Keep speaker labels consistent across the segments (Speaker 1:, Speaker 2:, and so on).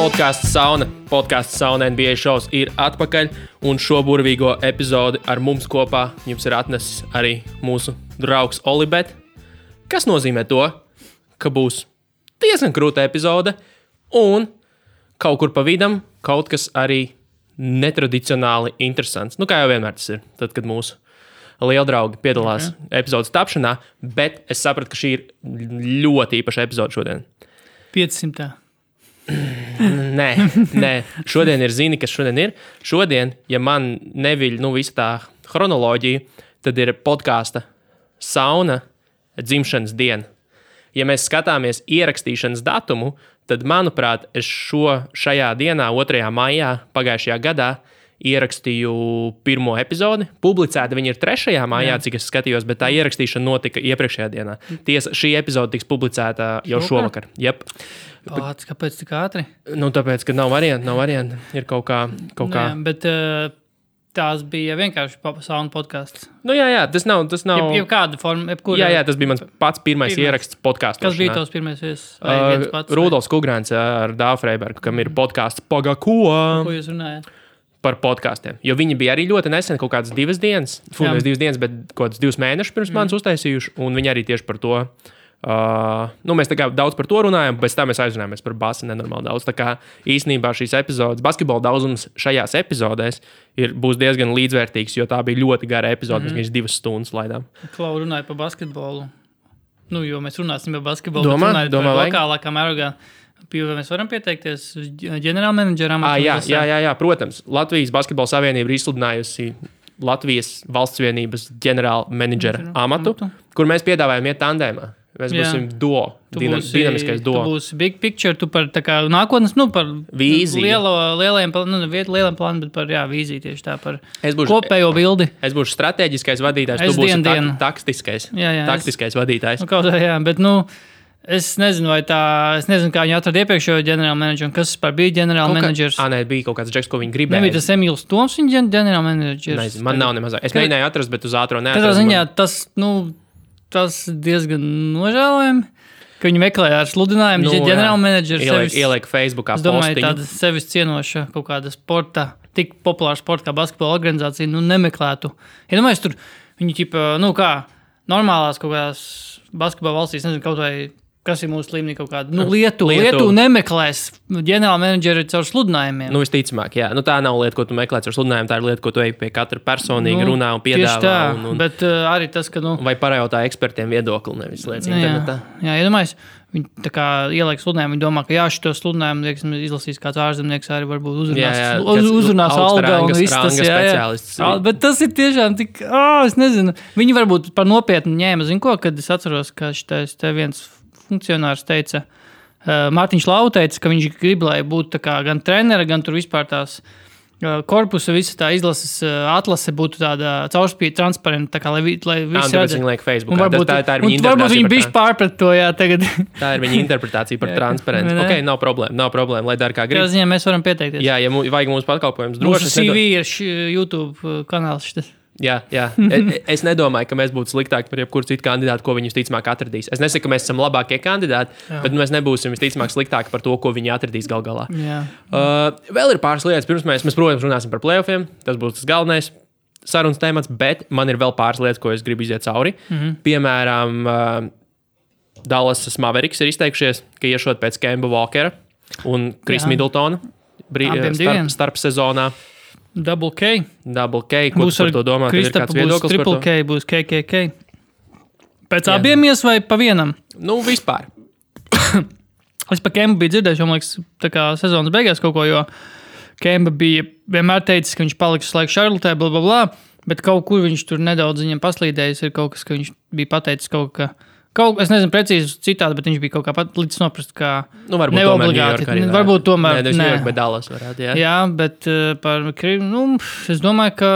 Speaker 1: Podcasts Sauna NBA šovs ir atpakaļ, un šo burvīgo epizodi ar mums kopā jums ir atnesis arī mūsu draugs Olibet, kas nozīmē to, ka būs diezgan krūta epizode, un kaut kur pa vidam kaut kas arī netradicionāli interesants. Nu, kā jau vienmēr tas ir, tad, kad mūsu lieldraugi piedalās epizodes tapšanā, bet es sapratu, ka šī ir ļoti īpaša epizode šodien.
Speaker 2: 500.
Speaker 1: Nē. Šodien ir zini, kas šodien ir. Šodien, ja man neviļ visa tā chronoloģija, tad ir podkāsta Sauna dzimšanas diena. Ja mēs skatāmies ierakstīšanas datumu, tad, manuprāt, es šajā dienā, 2. maijā pagājušajā gadā, ierakstīju pirmo epizodi. Publicēta viņa ir 3. maijā, cik es skatījos, bet tā ierakstīšana notika iepriekšējā dienā. Tiesa, šī epizode tiks publicēta jau šovakar. Jep.
Speaker 2: Kāpēc tik ātri?
Speaker 1: Tāpēc, ka nav varianti. Ir kaut kā.
Speaker 2: Nē, bet tās bija vienkārši sauna podcasts.
Speaker 1: Jā, tas nav.
Speaker 2: Jebkāda forma,
Speaker 1: Jā, tas bija mans pats pirmais ieraksts podkāstā.
Speaker 2: Kas bija tavs pirmais
Speaker 1: Rudolfs Kugrāns ar Dāvu Freibergu, kam ir podkāsts Pagako.
Speaker 2: Ko jūs runājat?
Speaker 1: Par podkāstiem. Jo viņi bija arī ļoti nesen, kaut kādas 2 dienas, nevis 2 dienas, bet kaut kāds 2 mēnešus pirms manis uztaisījuši, un viņi arī tieši par to. Mēs tā kā daudz par to runājam, bet tā mēs aizrunājamies par basi nenormāli daudz. Tā kā īstenībā šīs epizodes, basketbola daudzums šajās epizodēs būs diezgan līdzvērtīgs, jo tā bija ļoti gara epizode, mēs 2 stundas laidām.
Speaker 2: Klau runāja par basketbolu. Jo mēs runāsim par basketbolu.
Speaker 1: Domā,
Speaker 2: par lokālākā mērogā. Vai mēs varam pieteikties ģenerālmenedžera amatu?
Speaker 1: Jā, protams. Latvijas Basketbola Savienība ir izsludinājusi Latvijas valsts vienības ģenerālmenedžera amatu, kur mēs piedāvājam iet tandēmā. Mēs būsim duo, dinamiskais duo.
Speaker 2: Tu būsi big picture, tu par tā kā nākotnes, par
Speaker 1: vīziju.
Speaker 2: Lieliem plāniem, bet par vīziju tieši tā, par kopējo bildi.
Speaker 1: Es būšu strateģiskais vadītājs, tu būsi taktiskais vadītājs.
Speaker 2: Bet es nezinu, kā viņi atrada iepriekšējo ģenerālmenedžeru, kas bija ģenerālmenedžers.
Speaker 1: Bija kaut kāds džeks, ko viņi gribēja.
Speaker 2: Nebija tas Emīls Toms, viņa ģenerālmenedžers.
Speaker 1: Nezinu, man nav nemaz. Es mēģināju atrast, bet uz ātro neatradu.
Speaker 2: Katrā ziņā tas diezgan nožēlojami, ka viņi meklēja ar sludinājumu ģenerālmenedžers.
Speaker 1: Ieliek Facebookā
Speaker 2: postiņu. Es domāju, tāda sevis cienoša kaut kāda sporta, tik populāra sporta kā basketbola organizācija, nemeklētu. Ja domāju, tur viņi normālās kaut kādās basketbola valstīs, nezinu, kaut vai kas ir mūsu līmenī kaut kāda. Lietu nemeklēs ģenerālmenedžeri caur sludinājumiem.
Speaker 1: Visticamāk, jā. Tā nav lieta, ko tu meklē caur sludinājumu, tā ir lieta, ko tu ej pie katra personīgi runā un piedāvā.
Speaker 2: Tieši tā, bet arī tas, ka
Speaker 1: vai pajautā ekspertiem viedokli, nevis lietas internetā.
Speaker 2: Jā, iedomājies, viņi tā kā ieliek sludinājumu, viņi domā, ka šito sludinājumu, izlasīs kāds ārzemnieks, arī varbūt uzrunās alga un viss tas,
Speaker 1: speciālists.
Speaker 2: Bet tas ir tiešām tik, es nezinu, viņi varbūt par nopietnu ņēma, kad es atceros, ka šitais te viens funkcionārs teica, Mārtiņš Lau teica, ka viņš grib, lai būtu gan trenera, gan tur vispār tās korpusa, visa tā izlases atlase būtu tāda caurspīd, transparenta, lai visi
Speaker 1: redz. Viņi liek Facebookā. Tā ir viņa interpretācija.
Speaker 2: Varbūt viņi bišķi pārprat to, tagad.
Speaker 1: Tā ir viņa interpretācija par transparentu. Ok, nav problēma, lai dara kā grib.
Speaker 2: Tā ziņā mēs varam pieteikties.
Speaker 1: Jā, ja vajag mūsu pakalpojums droši.
Speaker 2: Mūsu CV ir YouTube kanāls šitas.
Speaker 1: Jā. Es nedomāju, ka mēs būtu sliktāki par jebkuru citu kandidātu, ko viņi visticamāk atradīs. Es nesaku, ka mēs esam labākie kandidāti, bet mēs nebūsim visticamāk sliktāki par to, ko viņi atradīs gal galā. Vēl ir pāris lietas. Pirms mēs, protams, runāsim par playoffiem. Tas būs tas galvenais sarunas temats, bet man ir vēl pāris lietas, ko es gribu iziet cauri. Piemēram, Dallas Mavericks ir izteikušies, ka iešot pēc Kemba Walkera un Chris Middletona starp sezonā.
Speaker 2: Double K.
Speaker 1: Ko tu par to domā? Tev ir kāds viedoklis par to?
Speaker 2: Triple K, būs KKK. Pēc abiem vai pa vienam?
Speaker 1: Vispār.
Speaker 2: Es pa Kembu biju dzirdējuši, man liekas, tā kā sezonas beigās kaut ko, jo Kemba bija vienmēr teicis, ka viņš paliks uz laiku Charlotē, blablabla, bet kaut kur viņš tur nedaudz viņam paslīdējis, ir kaut kas, ka viņš bija pateicis es nezinu precīzi citādi, bet viņš bija kaut kā pat līdz noprast, ka neobligāti. Varbūt tomēr.
Speaker 1: Bet Dallas varētu, jā.
Speaker 2: Jā, bet es domāju, ka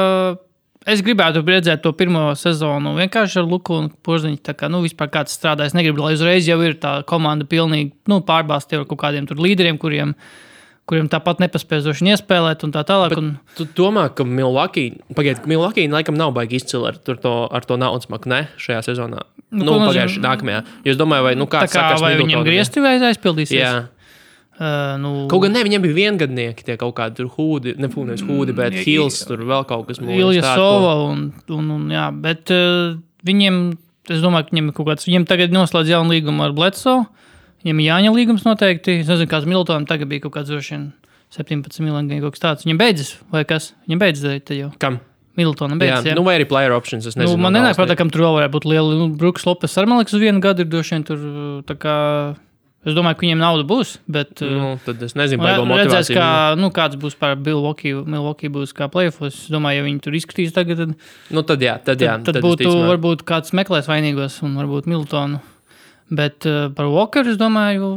Speaker 2: es gribētu redzēt to pirmo sezonu vienkārši ar Luku un Porziņu, tā kā, vispār kāds strādā. Es negribu, lai uzreiz jau ir tā komanda pilnīgi, pārbāzti ar kaut kādiem tur līderiem, kuriem tāpat nepaspējoši iespēlēt un tā tālāk.
Speaker 1: Tu domā, ka Milwaukee laikam nav baigi izcili ar to naudas maku, ne? Šajā sezonā. Pagājuši nākamajā. Jo es domāju, vai
Speaker 2: kā sakas
Speaker 1: vai
Speaker 2: viņam griezti vai aizpildīsies?
Speaker 1: Jā. Kaut gan ne, viņiem bija viengadnieki, tie kaut kādi tur hūdi, nevis hūdi, bet Hills, tur vēl kaut kas.
Speaker 2: Ilja Sova un jā, bet viņiem, es domāju, ka viņiem kaut kāds, viņiem tagad noslēdz jaunu līgumu ar Bledsoe, viņiem Jāņa līgums noteikti, es nezinu, kāds Middletonam tagad bija kaut kāds droši 17 miljoni kaut kas tāds, viņiem beidzas, vai kas? Viņiem beidzas te jau.
Speaker 1: Kam?
Speaker 2: Middletonam beidzas, jā.
Speaker 1: Vai arī player options, es nezinu.
Speaker 2: Man nenāk prātā, kam tur vēl varētu būt liela, Brooks Lopes ar Maliks uz vienu gadu ir droši tur tā kā... Es domāju, ka viņiem nauda būs, bet...
Speaker 1: tad es nezinu, vai vēl motivācija.
Speaker 2: Redzēs, kāds būs par Milwaukee būs kā playoffs. Es domāju, ja viņi tur izskatīs tagad, tad būtu, varbūt kāds meklēs vainīgos un varbūt Middletonu. Bet par Walkeru, es domāju...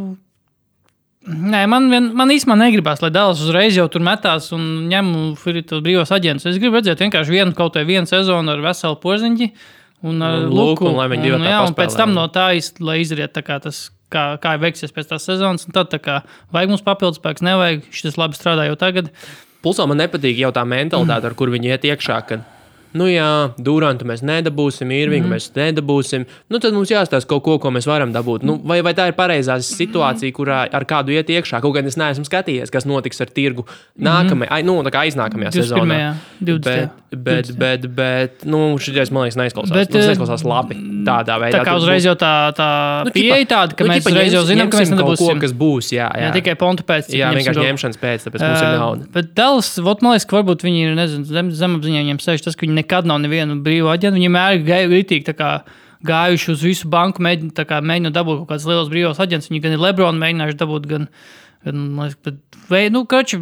Speaker 2: Nē, man īstenībā negribās, lai Dallas uzreiz jau tur metās un ņem tos brīvos aģentus. Es gribu redzēt vienkārši vienu sezonu ar veselu Porziņģi un ar Luku.
Speaker 1: Un lai viņi divi tā paspēlē.
Speaker 2: Un pēc tam no tā, lai izriet tā kā tas... Kā veiksies pēc tās sezonas, un tad tā kā vajag mums papildus spēks, nevajag, šis labi strādā jau tagad.
Speaker 1: Pulsā man nepatīk jau tā mentalitāte, ar kur viņi iet iekšā, kad Durantu mēs nedabūsim, Irvingu mēs nedabūsim, tad mums jāstāsta kaut ko mēs varam dabūt. Vai tā ir pareizā situācija, kurā ar kādu iet iekšā, kaut gan es neesmu skatījies, kas notiks ar tirgu tā kā aiznākamajā sezonā. 20. Bet šitais, man liekas, neizklausās labi tādā veidā.
Speaker 2: Tā kā uzreiz jau tā pieeja tāda, ka mēs uzreiz jau zinām, ka mēs nedabūsim.
Speaker 1: Kaut kas būs, jā.
Speaker 2: Tikai pontu pēc.
Speaker 1: Jā, vienkārši ņemšanas pēc, tāpēc mums ir nauda.
Speaker 2: Bet Dallas, man liekas, ka varbūt viņi ir, nezinu, zemapziņā viņiem sēž tas, ka viņi nekad nav nevienu brīvu aģentu. Viņi mēr ritīgi tā kā gājuši uz visu banku, mēģinot dabūt kaut kāds liels brīvos aģents. Viņi gan ir Lebronu mēģinājuši dabūt, gan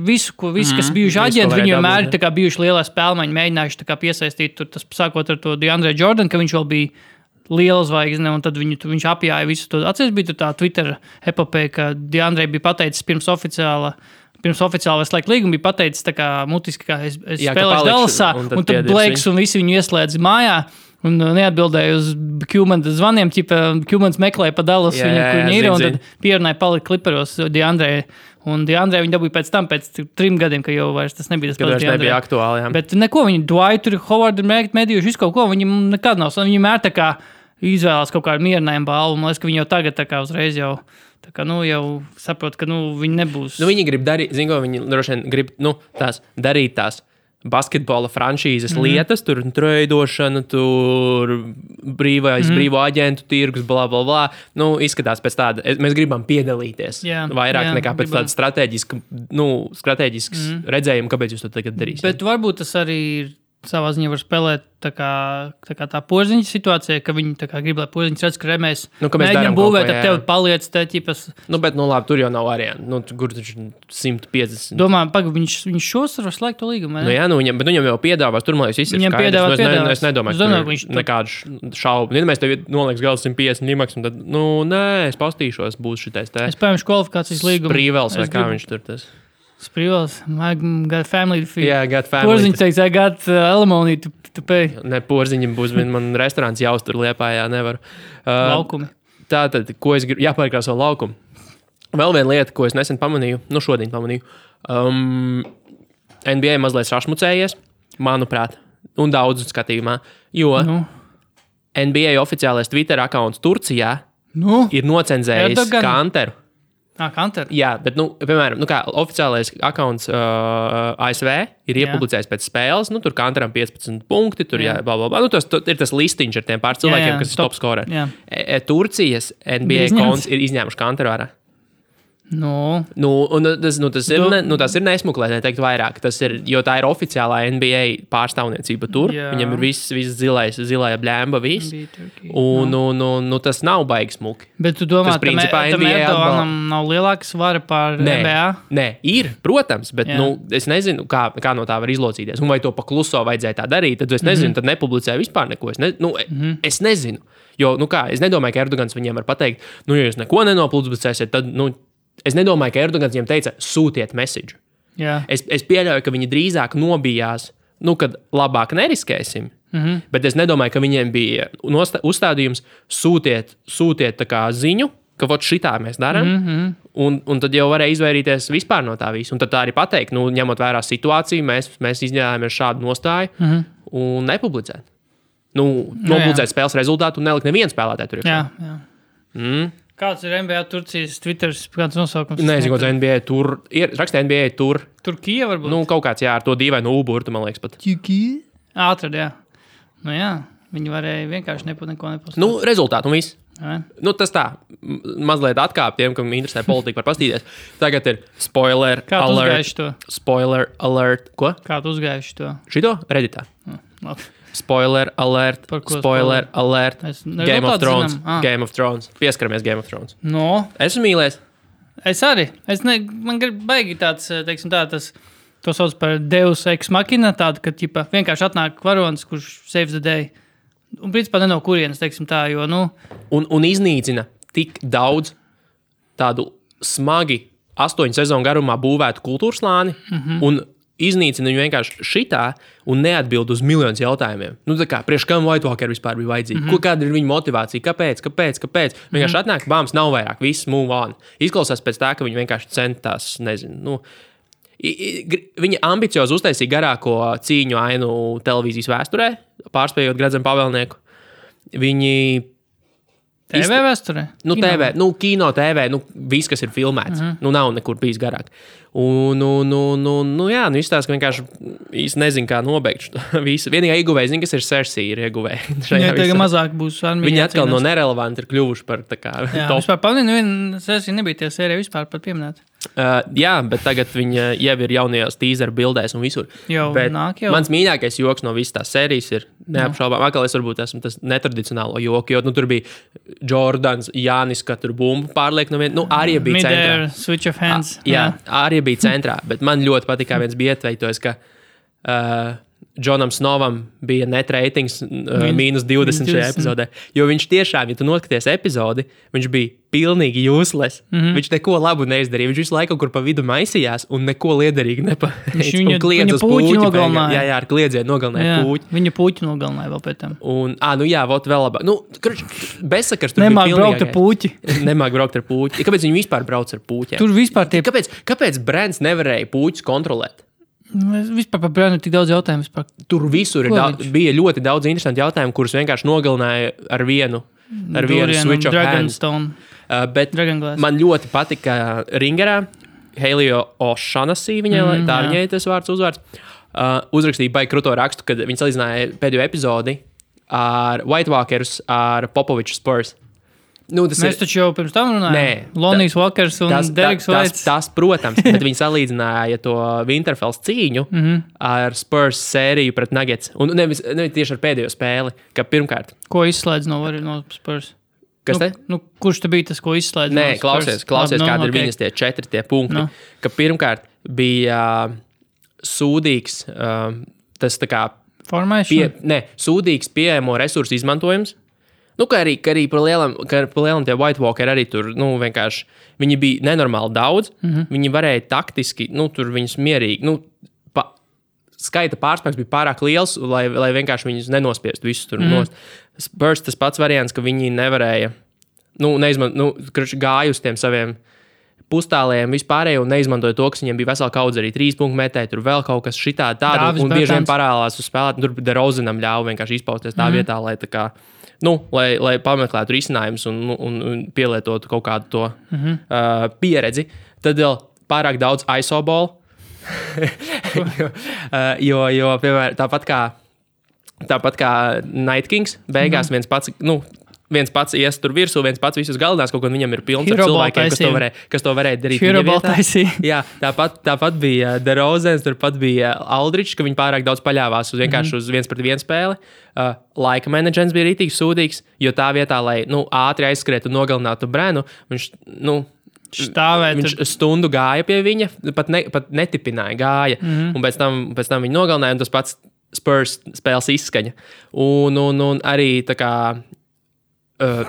Speaker 2: visu, kas bijuši aģenti, viņi vienmēr tā kā bijuši lielā spēlmaņi, mēģinājuši tā kā piesaistīt tur, tas sākot ar to DeAndre Jordan, ka viņš vēl bija liela zvaigzne, un tad viņš apjāja visu to. Atceries, bija tā Twitter epopeja, ka DeAndre bija pateicis pirms oficiāla slēgt līgumu, bija pateicis tā kā mutiski, ka es spēlēšu Dallasā, un tad Blakes un visi viņu ieslēdz mājā, un neatbildēja uz Qmans zvaniem, Qmans meklēja pa Dallasu, kur viņi ir, un tad pierunāja palikt Clipperos DeAndre. Un DeAndre viņi dabūja pēc 3 gadiem, ka jau vairs tas nebija tas pats DeAndre.
Speaker 1: Nebija aktuāli, jā.
Speaker 2: Bet neko, viņi Dwightu, Howardu ir medījuši, visu kaut ko, viņi nekad nav. Viņi mēr tā kā izvēlās kaut kādu mierinājumu balvu, man liekas, ka viņi jau tagad tā kā uzreiz jau... Tā kā, jau saprot, ka, viņi nebūs...
Speaker 1: Viņi grib darīt, viņi droši vien grib, darīt tās basketbola franšīzes lietas, tur treidošana, tur brīvo aģentu tirgus, bla, bla, bla. Izskatās pēc tāda, mēs gribam piedalīties vairāk nekā pēc tāda strateģisks redzējuma, kāpēc jūs to tagad darīsiet.
Speaker 2: Bet varbūt tas arī ir savā ziņā var spēlēt tā kā tā Porziņa situācija, ka viņi tā kā grib, lai Porziņš redz, ka mēs mēģinām būvēt ar tevi paliec te ķipas.
Speaker 1: Bet, labi, tur jau nav variantu. Kur taču 150.
Speaker 2: Domāju, viņš šos var slēgt to līgumu, ne?
Speaker 1: Bet viņam jau piedāvās, tur, man liekas, viss ir skaidrs. Es nedomāju, ka tur nekādu šaubu. Ja mēs tev nolieks gala 150 limaks, un tad, nē, es pastīšos, būs šitais te.
Speaker 2: Es pējuši kvalifikācijas līgumu.
Speaker 1: Sprīvels vai kā viņš tur tas.
Speaker 2: Sprīvels, I got family to feed.
Speaker 1: Yeah, I got family.
Speaker 2: Porziņš teiks, I got alimony to pay.
Speaker 1: Ne, Porziņam būs, man restorāns jāuztur Liepājā, nevaru.
Speaker 2: Laukumi.
Speaker 1: Tātad, ko es gribu, jāpārkrās savu laukumu. Vēl viena lieta, ko es nesen pamanīju, šodien pamanīju. NBA mazliet sašmucējies, manuprāt, un daudz skatījumā, jo NBA oficiālais Twitter accounts Turcijā ir nocenzējis Kanteru.
Speaker 2: Kanteru?
Speaker 1: Jā, bet, piemēram, kā oficiālais accounts ASV ir iepublicējis pēc spēles, tur Kanteram 15 punkti, tur blablabla. Tas ir tas listiņš ar tiem pār cilvēkiem, kas ir top scoreri. Turcijas NBA konts ir izņēmuši Kanteru ārā. Tas ir nesmuklēt, neteikt vairāk. Tas ir, jo tā ir oficiālā NBA pārstāvniecība tur. Viņam ir viss zilā bļēmba, viss. Un tas nav baigi smuki.
Speaker 2: Bet tu domā, ka Erdoganam nav lielāka svara pār NBA? Nē,
Speaker 1: ir, protams, bet es nezinu, kā no tā var izlocīties. Un vai to pakluso vajadzēja tā darīt, tad es nezinu, tad nepublicēju vispār neko. Es nezinu. Jo, es nedomāju, ka Erdogans viņiem var pateikt, ja jūs neko nenopublicēsiet, tad, es nedomāju, ka Erdogans viņiem teica, sūtiet message. Es pieļauju, ka viņi drīzāk nobijās, kad labāk neriskēsim. Bet es nedomāju, ka viņiem bija uzstādījums sūtiet tā kā ziņu, ka šitā mēs darām. Un tad jau varēja izvairīties vispār no tā visu. Un tad tā arī pateikt, ņemot vērā situāciju, mēs izņēmāmies šādu nostāju un nepublicēt. Nopublicēt spēles rezultātu un nelikt nevienu spēlētāju tur.
Speaker 2: Kāds ir NBA Turcijas Twitters, kāds nosaukums?
Speaker 1: Nezinu, kāds NBA tur. Raksta NBA tur.
Speaker 2: Turkija varbūt?
Speaker 1: Nu, kaut kāds, jā, ar to dīvainu uburtu, man liekas pat.
Speaker 2: Turkija? Atrad, jā. Nu jā, viņi varēja vienkārši neko nepastāstīt.
Speaker 1: Nu, rezultātu un viss.
Speaker 2: Ja.
Speaker 1: Nu, tas tā, mazliet atkāp tiem, kam interesē politika, var pastīties. Tagad ir spoiler
Speaker 2: Kā tu
Speaker 1: alert.
Speaker 2: uzgājuši to?
Speaker 1: Spoiler alert. Ko?
Speaker 2: Kā tu uzgājuši to?
Speaker 1: Šito? Redditā.
Speaker 2: Labi.
Speaker 1: Spoiler alert.
Speaker 2: Par ko
Speaker 1: Spoiler alert. Game of Thrones.
Speaker 2: Zinām.
Speaker 1: Game of Thrones. Pieskaramies Game of Thrones.
Speaker 2: No,
Speaker 1: Esmu mīlēs.
Speaker 2: es arī. Man grib baigi tāds, teiksim tā, to sauc par Deus Ex Machina, tādu, ka ķipa, vienkārši atnāk varonis, kurš saves the day. Un principā ne no kurienes, teiksim tā, jo, nu...
Speaker 1: Un iznīcina tik daudz tādu smagi 8 sezonu garumā būvētu kultūras slāni, un iznīcina viņu vienkārši šitā un neatbild uz miljonus jautājumiem. Nu, tā kā, priekš kam White Walker vispār bija vajadzīga? Kāda ir viņa motivācija? Kāpēc? Vienkārši atnāk, bāms, nav vairāk, viss move on. Izklausās pēc tā, ka viņi vienkārši centās, nezinu, nu... Viņa ambiciozi uztaisīja garāko cīņu ainu televīzijas vēsturē, pārspējot Gradzenu pavēlnieku. Viņi...
Speaker 2: TV vēsturē?
Speaker 1: Nu, TV, nu, kino TV, nu, viss, kas ir filmēts. Nu, nav nekur bijis garāk. Jā, nu, izstāsta, ka vienkārši īsti nezinu, kā nobeigt šo visu. Vienīgā ieguvēja, zinu, kas ir Cersei ir ieguvēja.
Speaker 2: Jā, tagad mazāk būs armija.
Speaker 1: Viņi atkal no nerelevanti ir kļuvuši par tā kā
Speaker 2: jā,
Speaker 1: top.
Speaker 2: Vispār pamanīju, Cersei nebija tie sērija vispār pat pieminēta.
Speaker 1: Jā, bet tagad viņa jau ir jaunajās teaser bildēs un visur.
Speaker 2: Jau
Speaker 1: bet
Speaker 2: nāk jau.
Speaker 1: Mans mīļākais joks no visas tās sērijas ir neapšaubām. Atkal es varbūt esmu tas netradicionālo joku, jo tur bija Jordans, Jānis, ka tur bumbu pārliek no viena. Nu, arī bija centrā.
Speaker 2: Mid-air, switch of hands.
Speaker 1: Jā, arī bija centrā, bet man ļoti patīk, kā viens bija ietveitojis, ka Džonam Snovam bija net ratings mīnus 20 šajā epizodē. Jo viņš tiešām, ja tu noskaties epizodi, viņš bija pilnīgi useless. Viņš neko labu neizdarīja. Viņš visu laiku kaut kur pa vidu maisījās un neko liederīgi nepateica.
Speaker 2: Viņa puķi nogalināja.
Speaker 1: Jā, ar kliedzienu nogalināja puķi.
Speaker 2: Viņa puķi nogalināja vēl pēc tam.
Speaker 1: Un, nu jā, vot vēl labāk. Nu, bezsakars tur
Speaker 2: Nemāk
Speaker 1: bija
Speaker 2: braukt ar puķi.
Speaker 1: Nemāk braukt ar puķi. Kāpēc viņi vispār brauc ar puķiem?
Speaker 2: Tur vispār tie...
Speaker 1: Kāpēc brands nevarēja puķus kontrolēt?
Speaker 2: Vispār par brānu ir tik daudz jautājumu. Vispār.
Speaker 1: Tur visur bija ļoti daudz interesanti jautājumi, kurus vienkārši nogalināja ar vienu switch of hands. Bet man ļoti patika Ringerā, Helio O'Shaughnessy, viņai tas uzvārds, uzrakstīja baigi kruto rakstu, kad viņi salīdzināja pēdējo epizodi ar White Walkers, ar Popoviču Spurs. Nu,
Speaker 2: mēs taču jau pirms tam runājām. Lonijs Walkers un Deriks Vaits.
Speaker 1: Tas, protams, bet viņi salīdzināja to Winterfells cīņu ar Spurs sēriju pret Nuggets. Un nevis tieši ar pēdējo spēli, ka pirmkārt.
Speaker 2: Ko izslēdz no Spurs?
Speaker 1: Kas te?
Speaker 2: Kurš te bija tas, ko izslēdz
Speaker 1: no Spurs? Nē, klausies, kādi ir viņas tie 4 punkti. Ka pirmkārt bija sūdīgs tas tā kā... sūdīgs pieejamo resursu izmantojums. Nu, kā arī par lielam tie White Walker arī tur, nu, vienkārši, viņi bija nenormāli daudz, viņi varēja taktiski, nu, tur viņus mierīgi, nu, skaita pārspēks bija pārāk liels, lai vienkārši viņus nenospiest visus tur nost. Spurs tas pats variants, ka viņi nevarēja, gāja uz tiem saviem pustālējiem vispārējo un neizmantoja to, kas viņiem bija vesela kaudze arī 3 punktu metēji, tur vēl kaut kas šitā tāda, un bieži vien parālās uz spēlēt, un tur DeRozanam ļauj vienkārši izpausties tā vietā, lai tā kā, lai pameklētu risinājumus un pielietotu kaut kādu to pieredzi. Tad vēl pārāk daudz ISO ball, jo piemēram, tāpat kā Night Kings, beigās viens pats ies tur virsū, viens pats visus galinās, kaut ko viņam ir pilns ar cilvēkiem, kas to varēja darīt. Jā, tāpat bija DeRozans, turpat bija Aldridge, ka viņi pārāk daudz paļāvās vienkārši uz 1-pret-1 spēli. Laika menedžents bija rītīgi sūdīgs, jo tā vietā, lai ātri aizskriet un nogalinātu Brenu, viņš stundu gāja pie viņa, pat netipināja gāja, un pēc tam viņi nogalināja, un tas pats Spurs spēles izskaņa. Un arī tā kā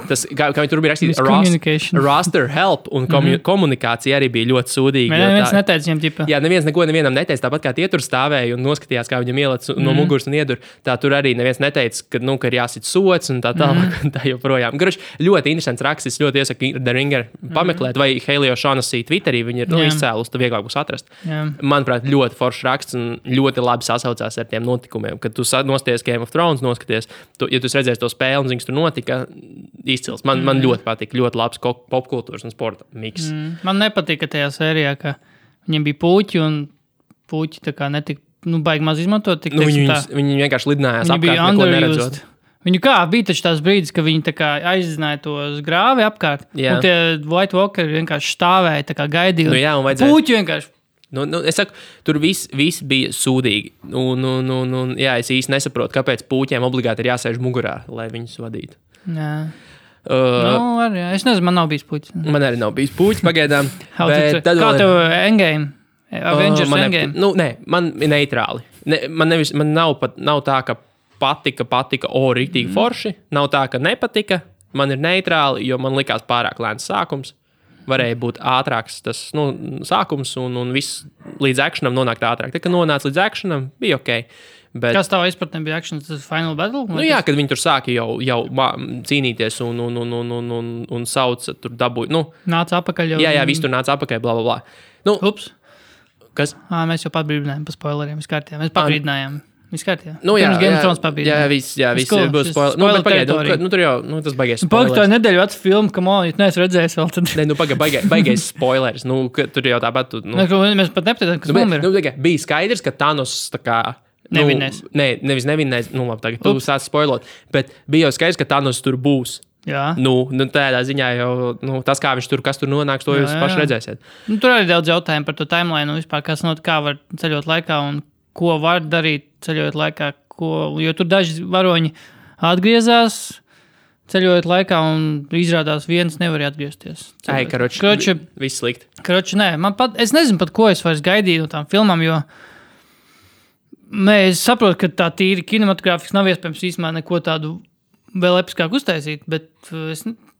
Speaker 1: tas, kā viņi tur bija rakstīts, roster help un komunikācija arī bija ļoti sūdīga.
Speaker 2: Neviens neteica viņam ģipa.
Speaker 1: Jā, neviens neko nevienam neteica, tāpat kā tie tur stāvēja un noskatījās, kā viņam ielec no muguras un iedur. Tā tur arī neviens neteica, ka ir jāsit sots un tā tālāk, tā joprojām. Garuši, ļoti interesants raksts, ļoti iesaku The Ringer pameklēt, vai Helio O'Shaughnessy Twitterī, viņi ir izcēlus, tad vieglāk būs atrast. Manuprāt, ļoti foršs raksts un ļoti labi sasaucās ar tiem notikumiem, kad tu nostājies Game of Thrones, noskaties, ja tu redzēsi to spēli un zini, tur notika, izcils. Man ļoti patīk, ļoti labs popkultūras un sporta miks.
Speaker 2: Man nepatīk, ka tajā sērijā, ka viņiem bija puķi un puķi tā kā netika, baigi maz izmantot. Tik,
Speaker 1: viņi vienkārši lidinājās apkārt, neko neredzot.
Speaker 2: Viņu bija taču tās brīdis, ka viņi tā kā aizzināja tos grāvi apkārt. Jā. Un tie White Walkeri vienkārši stāvēja, tā kā gaidīja. Puķi vienkārši.
Speaker 1: Es saku, tur viss bija sūdīgi. Jā, es īsti nesaprotu, kāpēc puķiem obligāti ir jāsēž mugurā, lai viņus vadītu.
Speaker 2: Jā. Es nezinu, man nav bijis puķis.
Speaker 1: Man arī nav bijis puķis pagaidām.
Speaker 2: Kā tev Endgame? Avengers Endgame?
Speaker 1: Nē, man ir neitrāli. Man nav tā, ka patika, rītīgi forši. Nav tā, ka nepatika. Man ir neitrāli, jo man likās pārāk lēns sākums. Varēja būt ātrāks tas sākums un viss līdz akšanam nonākt ātrāk. Tā, kad nonāca līdz akšanam, bija ok. Bet...
Speaker 2: Kas tavā izpratnē bija akšanas, tas Final Battle?
Speaker 1: Jā, kad viņi tur sāka jau cīnīties un sauca, tur dabūja.
Speaker 2: Nāca apakaļ jau.
Speaker 1: Jā, viss tur nāca apakaļ, bla, bla, bla.
Speaker 2: Ups.
Speaker 1: Kas?
Speaker 2: Mēs jau patbrīdinājām par spoileriem, viss kārtībā. Mēs pabrīdinājām. Viss kārtībā.
Speaker 1: Jā, viss būs spoileri. Pagaid, tur jau, tas baigais spoilers.
Speaker 2: Pagaid, nedēļu vecu filmu, ka man, ja neesmu redzējis vēl, tad...
Speaker 1: Baigais spoilers. Tur jau tāpat...
Speaker 2: Mēs pat nepateitam, kas mums ir.
Speaker 1: Bija skaidrs, ka Thanos tā kā...
Speaker 2: Nevinnēs.
Speaker 1: Nevis nevinnēs. Labi, tagad tu sāc spoilot. Bet bija jau skaidrs, ka Thanos tur būs.
Speaker 2: Jā.
Speaker 1: Tādā ziņā jau tas, kā viņš tur, kas tur nonāks, to jūs paši redzēsiet.
Speaker 2: Tur arī daudz jautājumu par to timeline, vispār, kā var ceļot laikā un ko var darīt ceļojot laikā, jo tur daži varoņi atgriezās ceļojot laikā un izrādās viens nevar atgriezties.
Speaker 1: Karoči, viss slikti.
Speaker 2: Karoči, nē, es nezinu pat, ko es vairs gaidīju no tām filmām, jo es saprotu, ka tā tīri kinematogrāfiski nav iespējams īstenībā neko tādu vēl episkāku uztaisīt, bet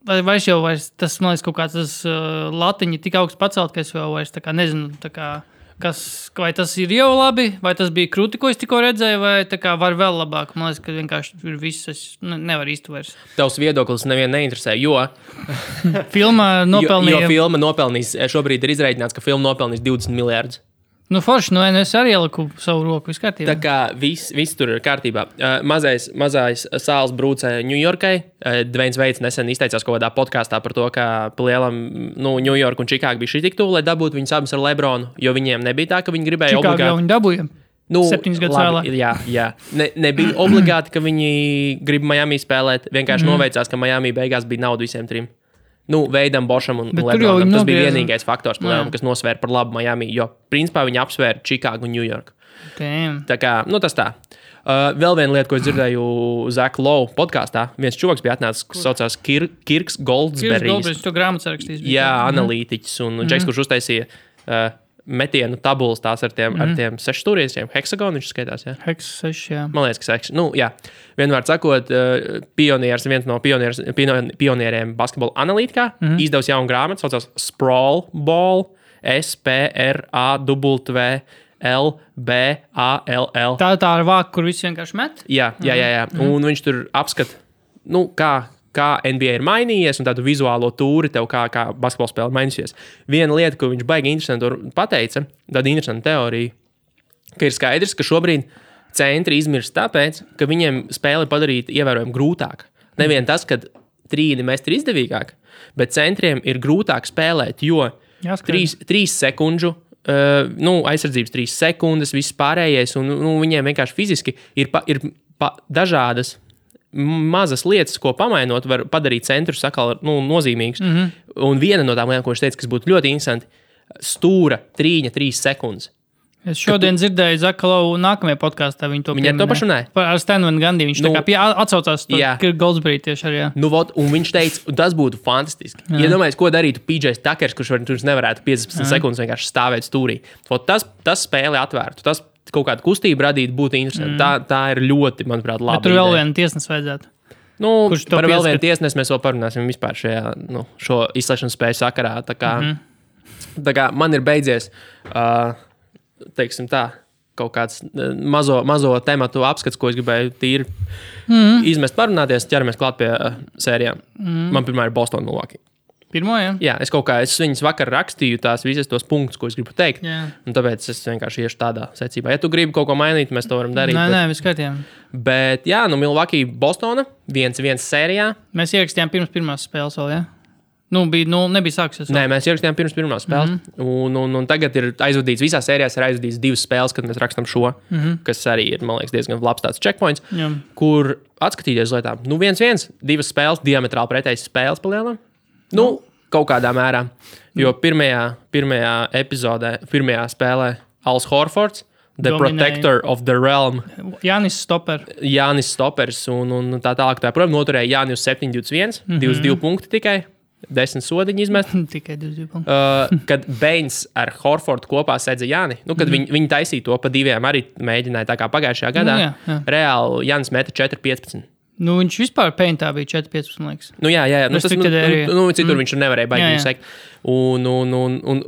Speaker 2: vairs tas, man liekas, kaut kāds tas latiņi tik augsts pacelt, ka es vēl vairs tā kā nezinu, tā kā vai tas ir jau labi, vai tas bija krūti, ko es tikko redzēju, vai tā kā var vēl labāk. Man liekas, ka vienkārši ir viss, es nevaru īsti vairs.
Speaker 1: Tavs viedoklis nevienu neinteresē, jo...
Speaker 2: Filma nopelnīja...
Speaker 1: Jo filma nopelnīs, šobrīd ir izreikināts, ka filma nopelnīs 20 miljārdus.
Speaker 2: Forši, es arī ieliku savu roku, viss kārtībā.
Speaker 1: Tā kā viss tur ir kārtībā. Mazais sāls brūcē Ņujorkai. Dveins Veits nesen izteicās kaut kādā podkāstā par to, ka lielam Ņujorka un Čikāga bija šī tik tuvu, lai dabūtu viņus abus ar Lebronu, jo viņiem nebija tā, ka viņi gribēja obligāti.
Speaker 2: Čikāga jau viņi dabūja 7 gadus vēlāk.
Speaker 1: Jā. Nebija obligāti, ka viņi grib Miami spēlēt. Vienkārši noveicās, ka Miami beigās bija nauda visiem trim. Veidam, Bošam un Lebronam. Tas bija vienīgais faktors, kas nosvēra par labu Miami, jo principā viņi apsvēra Čikāgu un Ņujorku. Tā kā, tas tā. Vēl viena lieta, ko es dzirdēju Zaka Lowe podkāstā, viens čuvaks bija atnācis, kas saucās Kirks Goldsberrijs.
Speaker 2: To grāmatu sarakstīs.
Speaker 1: Jā, analītiķis un Džeks, kurš uztaisīja metienu tabulas tās ar tiem 6 stūriešiem. Hexagonu viņš skaitās, jā?
Speaker 2: Hex 6, jā.
Speaker 1: Man liekas, ka 6. Jā. Vienmēr sakot, viens no pionieriem basketbola analītikā izdevusi jaunu grāmatu, saucās Sprawl Ball, SPRAWLBALL.
Speaker 2: Tā ir vāka, kur visi vienkārši met?
Speaker 1: Jā. Un viņš tur apskata, kā NBA ir mainījies un tādu vizuālo tūri tev, kā basketbola spēle mainīsies. Viena lieta, ko viņš baigi interesanti pateica, tāda interesanta teorija, ka ir skaidrs, ka šobrīd centri izmirst tāpēc, ka viņiem spēle ir padarīta ievērojami grūtāk. Nevien tas, ka trīni mest ir izdevīgāk, bet centriem ir grūtāk spēlēt, jo 3 sekundžu, aizsardzības 3 sekundes, viss pārējais, un viņiem vienkārši fiziski ir dažādas mazas lietas, ko pamainot, var padarīt centrus atkal nozīmīgus. Un viena no tām lietām, ko viņš teica, kas būtu ļoti interesanti, stūra trīņa 3 sekundes.
Speaker 2: Es šodien dzirdēju Zaka Lowe nākamajā podkāstā. Viņi to
Speaker 1: pašu runāja?
Speaker 2: Ar Stanu Van Gundy. Viņš tā kā atsaucās to Goldsberry tieši arī.
Speaker 1: Un viņš teica, tas būtu fantastiski. Ja domājies, ko darītu PJs Tuckers, kurš nevarētu 15 sekundes vienkārši stāvēt stūrī. Tas spēli atvērtu. Tas kaut kādu kustību radīt būtu interesanti. Tā ir ļoti, manuprāt, labi.
Speaker 2: Bet tur vēl viena tiesnes vajadzētu.
Speaker 1: Par vēl vienu tiesnesi mēs vēl parunāsim vispār šo izslēgšanas spēju sakarā. Tā kā man ir beidzies, teiksim tā, kaut kāds mazo tematu apskats, ko es gribēju tīri izmest parunāties, ķeramies klāt pie sērijām. Man pirmā ir Boston Milwaukee.
Speaker 2: Pirmo, jā?
Speaker 1: Jā, es viņas vakar rakstīju tās visas tos punktus, ko es gribu teikt.
Speaker 2: Jā.
Speaker 1: Un tāpēc es vienkārši iešu tādā secībā. Ja tu gribi kaut ko mainīt, mēs to varam darīt.
Speaker 2: Nē, viss kārtībā.
Speaker 1: Bet jā, Milwaukee, Bostona 1-1 sērijā.
Speaker 2: Mēs ierakstījām pirms pirmās spēles vēl, jā? Nebija sāksies.
Speaker 1: Nē, mēs ierakstījām pirms pirmās spēles. Un tagad ir aizvadīts, visās sērijās ir aizvadīts 2 spēles, kad mēs rakstām šo, kas arī ir, man liekas, diezgan labs tāds checkpoints, kur atskatīties lietām. 1-1, 2 spēles, diametrāli pretējas spēles palielinām. Kaut kādā mērā. Jo pirmajā epizodē, pirmajā spēlē Als Horfords, The Protector of the Realm.
Speaker 2: Jānis
Speaker 1: Stoppers un tā tālāk. Protams, noturēja Jāni uz 7-21, 22 punkti tikai. 10 sodiņu izmest.
Speaker 2: Tikai 22 punkti.
Speaker 1: Kad Bains ar Horfordu kopā sēdza Jāni, kad viņi taisīja to pa 2, arī mēģināja tā kā pagājušajā gadā.
Speaker 2: Jā.
Speaker 1: Reāli Jānis meta 4-15.
Speaker 2: Viņš vispār paintā bija 4-15, man liekas.
Speaker 1: Jā. Citur viņš nevarēja baigi sekt. Un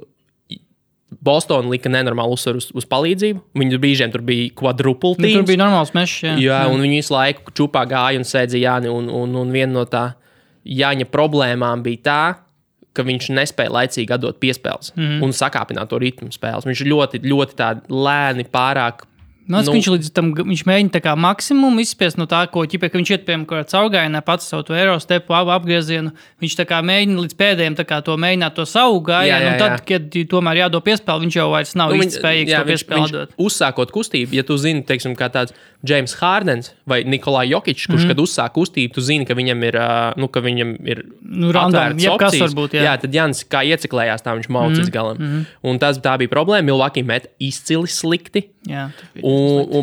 Speaker 1: Boston lika nenormālu uzsvaru uz palīdzību. Viņu brīžiem tur bija quadruple teams.
Speaker 2: Tur bija normāls mešs,
Speaker 1: jā. Un viņi visu laiku čupā gāja un sēdza Jāni. Un viena no tā Jāņa problēmām bija tā, ka viņš nespēja laicīgi atdot piespēles un sakāpināt to ritmu spēles. Viņš ļoti, ļoti tā lēni pārāk.
Speaker 2: Viņš līdz tam viņš mēģina tā kā maksimumu izspiest no tā, ka viņš iet piemēram kaut kādā caurgājienā pats savu to aerostepu, apgriezienu. Viņš tā kā mēģina līdz pēdējiem tā kā to mēģināt to savu gājienu, un tad, kad tomēr jādod piespēli, viņš jau vairs nav īsti spējīgs to piespēli dot.
Speaker 1: Uzsākot kustību, ja tu zini, teiksim, kā tāds James Hardens vai Nikolai Jokičs, kurš, kad uzsāk kustību, tu zini, ka viņam ir
Speaker 2: atvērts opcijas. Varbūt, jā,
Speaker 1: tad Jānis kā ieciklējās, tā viņš maucīs galam. Un tā bija problēma. Milwaukee met izcili slikti.
Speaker 2: Jā,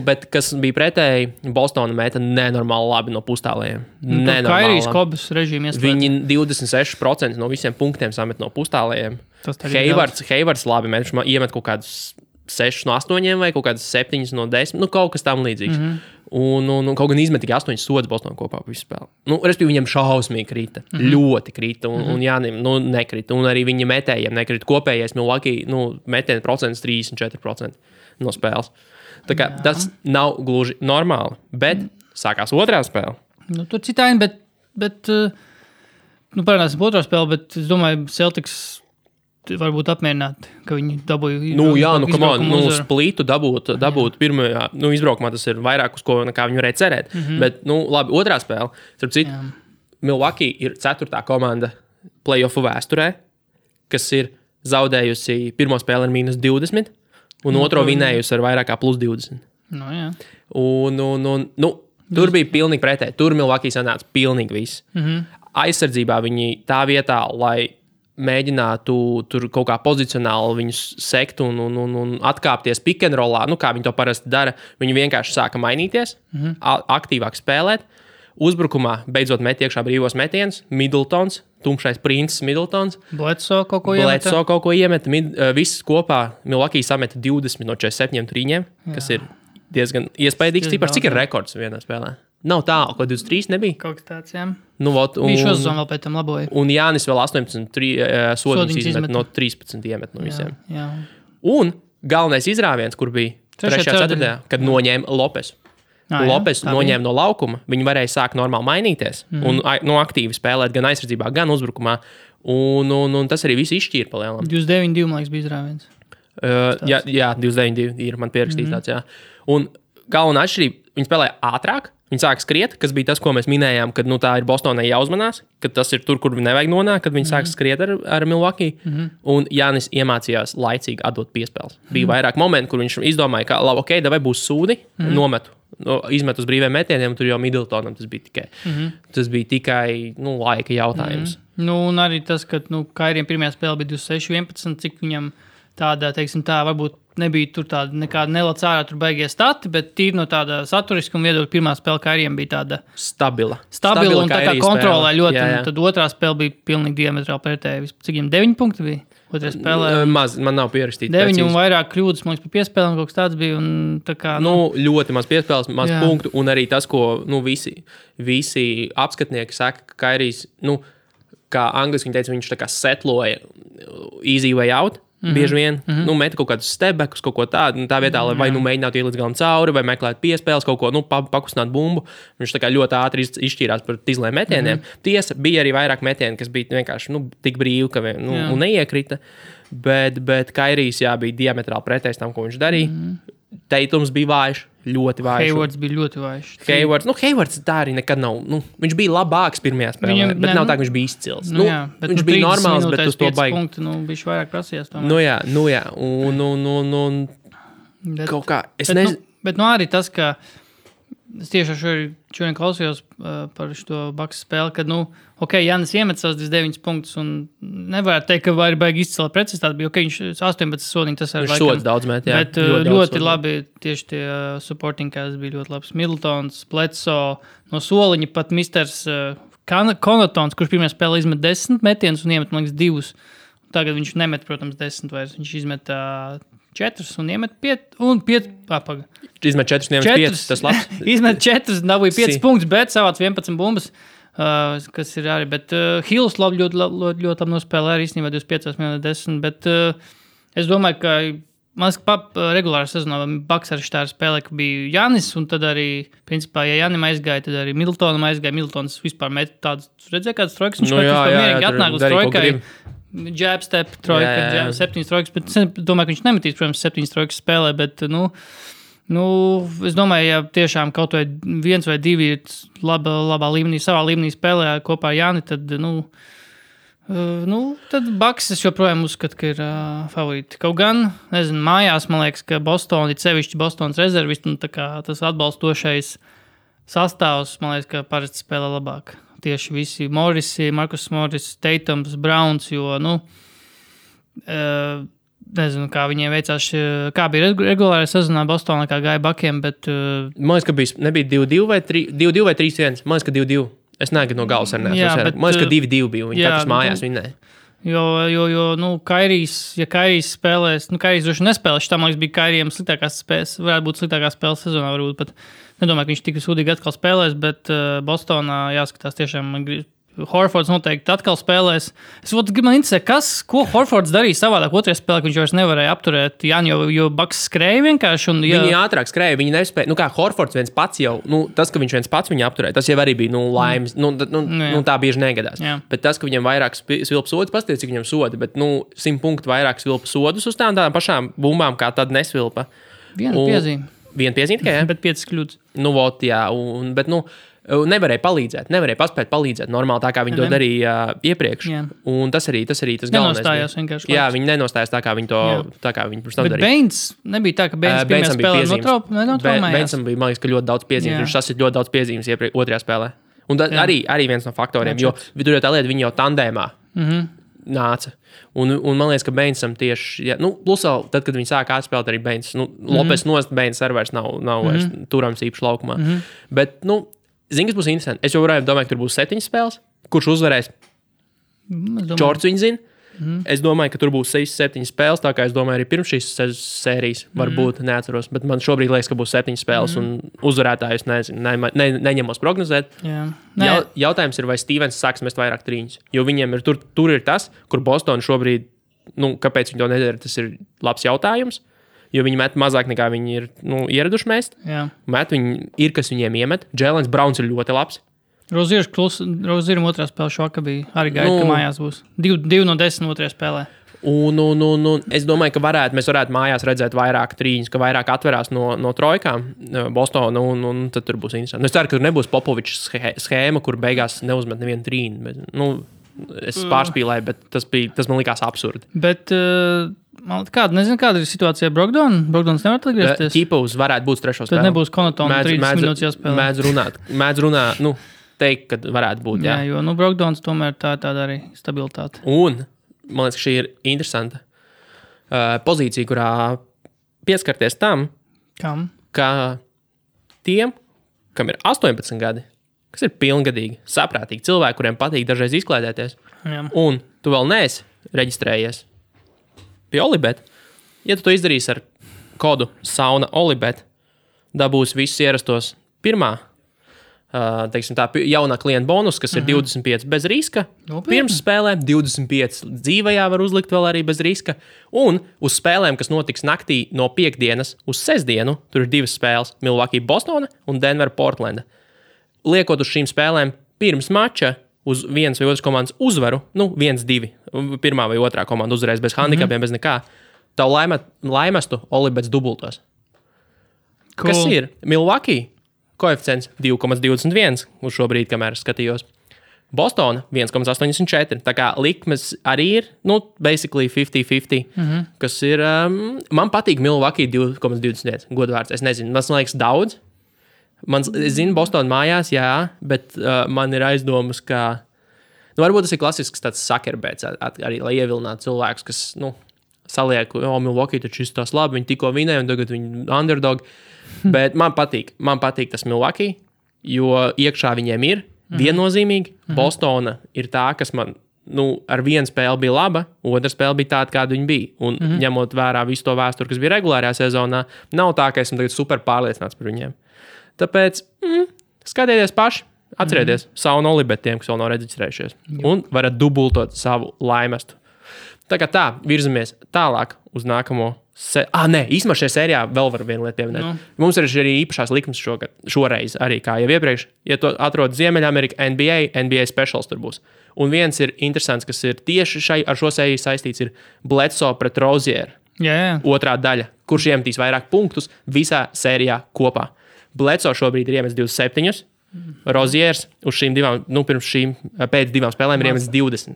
Speaker 1: bet kas bija pretēji, Bostona meta nenormāli labi no pustālējiem.
Speaker 2: Kairijas Kobas režīmu ieslēdz.
Speaker 1: Viņi 26% no visiem punktiem samet no pustālējiem. Heivards labi met, viņš iemet kaut kādus 6 no 8 vai kaut kādas 7 no 10, kaut kas tam līdzīgs. Un kaut gan izmet tikai 8 sodas Bostonā kopā pa visu spēli. Respektīvi, viņam šausmīgi krita. Ļoti krita. Un Jānim nekrita. Un arī viņa metējiem nekrita. Kopējais Milwaukee metienu procents 34% no spēles. Tā kā tas nav gluži normāli. Bet sākās otrā spēle.
Speaker 2: Tur citādi, bet parādās otrā spēle, bet es domāju, Celtics varbūt apmierināti, ka viņi dabūja
Speaker 1: splītu dabūt pirmajā, izbraukumā tas ir vairāk uz ko, kā viņi varēja cerēt. Bet, labi, otrā spēle, starp citu, Milwaukee ir 4. komanda play-offu vēsturē, kas ir zaudējusi pirmo spēli ar -20 un otro vinējusi ar vairāk kā +20.
Speaker 2: Jā.
Speaker 1: Tur bija pilnīgi pretēji. Tur Milwaukee sanāca pilnīgi viss. Aizsardzībā viņi tā vietā, lai mēģinātu tur kaut kā pozicionāli viņus sekt un atkāpties pick and rollā, kā viņi to parasti dara. Viņi vienkārši sāka mainīties, aktīvāk spēlēt. Uzbrukumā beidzot met iekšā brīvos metienus. Middletons, tumšais princis Middletons.
Speaker 2: Bledsoe kaut ko
Speaker 1: iemet. Viss kopā Milwaukee sameta 20 no 47 trīņiem, kas ir diezgan iespaidīgs cipars. Cik ir rekords vienā spēlē? Nav tālu, ko 23 nebija.
Speaker 2: Kaut kas tāds, jā.
Speaker 1: Bija
Speaker 2: šo sezonu vēl pēc tam laboja.
Speaker 1: Un Jānis vēl 18 sodiņas izmet no 13 iemet no visiem.
Speaker 2: Jā.
Speaker 1: Un galvenais izrāviens, kur bija 3. 4. kad noņēma Lopesu. Lopes noņēma no laukuma, viņi varēja sākt normāli mainīties un aktīvi spēlēt gan aizsardzībā, gan uzbrukumā. Un tas arī viss izšķīra palielam.
Speaker 2: 29-2, man liekas, bija izrāviens.
Speaker 1: Jā, 29-2 ir man pierakstīts tāds, jā. Un galvenā atšķirība, viņi spēlēja ātrāk, viņi sāka skriet, kas bija tas, ko mēs minējām, kad tā ir Bostonai jāuzmanās, kad tas ir tur, kur nevajag nonākt, kad viņi sāka skriet ar Milwaukee. Un Jānis iemācījās laicīgi atdot piespēles. Bija vairāk momenti, kur viņš izdomāja, ka labi, ok, vai būs sūdi, nometu. Izmet uz brīviem metieniem, tur jau Middletonam tas bija tikai laika jautājums.
Speaker 2: Un arī tas, ka Kairiem pirmajā spēlē bija 26-11, cik viņam tāda, teiksim tā, varbūt nebija tur tāda nekāda nelec ārā tur baigie stati, bet tīri no tāda saturiskuma viedokļa pirmā spēle Kairiem bija tāda
Speaker 1: stabila
Speaker 2: un tā kā kontrolē ļoti. Jā. Tad otrā spēle bija pilnīgi diametrāli pretēji. Cik viņam 9 punkti bija? Otrā spēlē
Speaker 1: maz, man nav pierakstīts.
Speaker 2: 9 un vairāk kļūdas, man liekas, pa piespēlēm kaut kas tāds bija. Un tā kā,
Speaker 1: ļoti maz piespēles, maz punktu. Un arī tas, ko visi apskatnieki saka, ka Kairijs, kā angliski viņi teica, viņš tā kā setloja easy way out. bieži vien. Nu, meta kaut kādus stebekus, kaut ko tādu. Tā vietā, lai vai nu mēģinātu iet līdz galam cauri, vai meklēt piespēles, kaut ko pakustināt bumbu. Viņš tā kā ļoti ātri izšķīrās par tizliem metieniem. Tiesa, bija arī vairāk metieni, kas bija vienkārši tik brīvi, ka un neiekrita. Bet Kairijs bija diametrāli pretējs tam, ko viņš darīja. Teitums bija vājš, ļoti vājš.
Speaker 2: Haywards bija ļoti vājš.
Speaker 1: Haywards tā arī nekad nav. Viņš bija labāks pirmajā spēlē, bet nav tā, ka viņš bija izcils. Viņš bija normāls, bet uz to baigi.
Speaker 2: Punktu, viņš vairāk prasījās.
Speaker 1: Jā. Un kaut kā, es nezinu.
Speaker 2: Bet arī tas, ka es tieši šodien klausījos par šo Bucks spēli, kad, Jānis iemet savus 29 punktus un nevarētu teikt, ka var baigi izcila precizitāte, bija viņš 18 sodiņi, tas
Speaker 1: viņš sods daudz met, jā.
Speaker 2: Bet ļoti labi tieši tie supporting cast bija ļoti labs. Middletons, Bledsoe, no soliņa pat misters Connaughtons, kurš pirmajā spēlē izmet 10 metienus un iemet, man liekas, 2. Tagad viņš nemet, protams, 10 vairs. Viņš izmet 4 un iemet 5 un 5 papaga.
Speaker 1: Izmet 4 un iemet 5, tas labs.
Speaker 2: Izmet 4, dabūja 5 punktus, bet savāc 11 bumbas, kas ir arī. Bet Hills ļoti labi nospēlē, arī īstenībā 25 minūtes 10, bet es domāju, ka regulārā sezonā Bucks arī štāri spēlē, ka bija Jānis, un tad arī, principā, ja Jānim aizgāja, tad arī Middletonam aizgāja. Middletons vispār met tādas, redzēja kādas trojkas, viņš mierīgi atnāk uz trojkai. Jab step, trojka, 7 trojkas, bet es domāju, ka viņš nemetīs, protams, 7 trojkas spēlē, bet, es domāju, ja tiešām kaut vai 1 vai 2 ir labā līmenī, savā līmenī spēlē kopā ar Jāni, tad, tad Bucks es joprojām uzskatu, ka ir favorīti. Kaut gan, nezinu, mājās, man liekas, ka Boston, ir sevišķi Bostonas rezervisti, un tā kā tas atbalstošais sastāvs, man liekas, ka parasti spēlē labāk. Tieši visi Morrisi, Marcus Morris, Tatums, Browns, jo, nezinu, kā viņiem veicās, kā bija regulārā sezonā Bostonā, kā gāja Buckiem, bet...
Speaker 1: Man liekas, ka nebija 2-2 vai 3-1. Man liekas, ka 2-2. Es neagadu no galas ar neesmu. Man liekas, ka 2-2 bija. Viņi katrs mājās vinnēja. Jo Kairijs spēlēs, Kairijs droši nespēlēs, šitā, man liekas, bija Kairijam sliktākās spēles, varētu būt sliktākā spēles sezonā, varbūt pat nedomāju, ka viņš tik sūdīgi atkal spēlēs, bet Bostonā jāskatās tiešām, Horfords noteikti atkal spēlēs. Man interesē, ko Horfords darīja savādāk otrajā spēlē, ka viņš vairs nevarēja apturēt Jāni, jo Bucks skrēja vienkārši. Viņi ātrāk skrēja, viņi nespēja. Kā Horfords viens pats jau, tas, ka viņš viens pats viņu apturēja, tas jau arī bija, laimes. Tā bieži negadās. Jā. Bet tas, ka viņam vairāk svilpa sodus, pasties, cik viņam sodi, bet 100 punktu vairāk svilpa sodus uz tādām pašām bumbām, kā tad nesvilpa.
Speaker 2: Viena piezīme
Speaker 1: tikai, jā?
Speaker 2: Bet 5 kļūdas.
Speaker 1: Bet nevarēja palīdzēt, nevarēja paspēt palīdzēt normāli tā, kā viņi to darīja iepriekš. Jā. Un tas arī tas galvenais.
Speaker 2: Nenostājās vienkārši.
Speaker 1: Jā, viņi nenostājās tā, kā viņi to pirms tam darīja.
Speaker 2: Bet Baines nebija tā, ka Baines pirmajā spēlē notraumējās.
Speaker 1: Bainesam bija, man liekas, ka ļoti daudz piezīmes. Viņš sasit ļoti daudz piezīmes otrajā spēlē. Un arī viens no faktoriem, jo tur jau tā lieta, viņi jau tandēmā nāca. Un man liekas, ka Bainesam tieši, plus vēl tad, kad viņi sāka atspēlēt arī Baines, Lopes nost Baines arī vairs nav vairs turams īpaši laukumā. Bet, zini, kas būs interesanti? Es jau domāju, ka tur būs 7 spēles. Kurš uzvarēs? Čorts viņi zina. Es domāju, ka tur būs 6-7 spēles, tā kā es domāju arī pirms šīs sērijas varbūt neatceros, bet man šobrīd liekas, ka būs 7 spēles un uzvarētājus neņemos prognozēt. Jautājums ir, vai Stevens sāks mest vairāk trīņus, jo viņiem ir tur ir tas, kur Boston šobrīd, kāpēc viņi to nedara, tas ir labs jautājums. Jo viņi met mazāk nekā viņi ir ieraduši mest. Met viņi ir, kas viņiem iemet. Jēlens Browns ir ļoti labs.
Speaker 2: Rozieram otrā spēle šokā bija. Arī gaida, ka mājās būs. 2 no 10 otrajā spēlē.
Speaker 1: Un es domāju, ka mēs varētu mājās redzēt vairāk trīņus, ka vairāk atverās no trojkām Bostona, un tad tur būs interesanti. Es ceru, ka tur nebūs Popovičs schēma, kur beigās neuzmet nevienu trīnu. Es pārspīlēju, bet tas man likās absurdi.
Speaker 2: Bet... Nezinu, kāda ir situācija ar Brogdonu. Brogdons nevar atgriezties.
Speaker 1: Ķipus varētu būt 3. spēlē.
Speaker 2: Tad nebūs Connaughtona 30 minūtes jāspēlē.
Speaker 1: Mēdz runāt, teikt, ka varētu būt, jā.
Speaker 2: Jā, jo, Brogdons tomēr tāda arī stabilitāte.
Speaker 1: Un, man liekas, šī ir interesanta pozīcija, kurā pieskarties tam, ka tiem, kam ir 18 gadi, kas ir pilngadīgi, saprātīgi cilvēki, kuriem patīk dažreiz izklaidēties, un tu vēl neesi reģistrējies pie Olibet. Ja tu to izdarīsi ar kodu sauna Olibet, dabūs visus ierastos pirmā teiksim tā, jaunā klienta bonus, kas ir 25 bez riska. Pirms spēlēm 25 dzīvajā var uzlikt vēl arī bez riska. Un uz spēlēm, kas notiks naktī no piekdienas uz sestdienu, tur ir 2 spēles – Milwaukee Bostona un Denver Portlanda. Liekot uz šīm spēlēm pirms mača uz vienas vai otras komandas uzvaru, 1-2, pirmā vai otrā komanda uzvarēs bez handikapiem, bez nekā, tavu laimestu Olibets dubultos. Cool. Kas ir? Milwaukee koeficients 2,21 uz šo brīdi, kamēr skatījos. Bostona 1,84. Tā kā likmes arī ir, basically 50-50, kas ir, man patīk Milwaukee 2,21, godvārds. Es nezinu, man liekas daudz. Es zinu, Bostona mājās, jā, bet man ir aizdomas, ka, varbūt tas ir klasisks tāds sakerbēts, arī, lai ievilinātu cilvēkus, kas, saliek, Milwaukee taču izstās labi, viņi tikko vinēja, un tagad viņi underdog. Bet man patīk tas Milwaukee, jo iekšā viņiem ir viennozīmīgi. Bostona ir tā, kas man ar vienu spēli bija laba, otra spēle bija tāda, kāda viņa bija. Un ņemot vērā visu to vēsturi, kas bija regulārajā sezonā, nav tā, ka esmu tagad super pārliecināts par viņiem. Tāpēc skatieties paši, atcerieties savu nolibetiem, kas vēl nav reģistrējušies. Un varat dubultot savu laimestu. Tā kā tā, virzamies tālāk uz nākamo. Īsumā šajā sērijā vēl var vienu lietu pieminēt. Mums ir arī īpašās likmes šoreiz, arī kā jau iepriekš. Ja to atrod Ziemeļamerika NBA specials tur būs. Un viens ir interesants, kas ir tieši ar šo sēriju saistīts, ir Bledsoe pret Rozier. Otrā daļa, kurš iemetīs vairāk punktus visā sērijā kopā. Bledsoe šobrīd ir iemetis 27. Roziers uz šīm divām, pēc 2 spēlēm ir iemetis 20.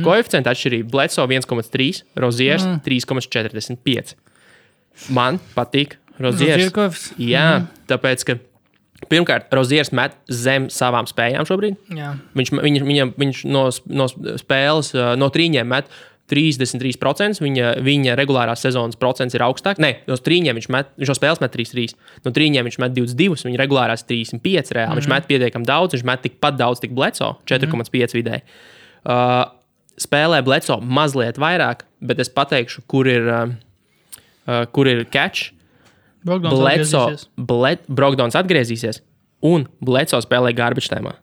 Speaker 1: Koeficienta atšķirība Bledsoe 1,3, Roziers 3,45. Man patīk Roziers. Jā, tāpēc, ka pirmkārt, Roziers met zem savām spējām šobrīd. Jā. Viņš no spēles, no trīņiem met 33%, viņa regulārās sezonas procents ir augstāk. Nē, no trīņiem viņš no spēles met 3-3. No trīņiem viņš met 22, viņa regulārās 35 reāli. Viņš met pietiekami daudz, viņš met tikpat daudz, tik Bledsoe, 4,5 vidēji. Spēlē Bledsoe mazliet vairāk, bet es pateikšu, kur ir catch. Brogdons atgriezīsies un Bledsoe spēlē garbage timā.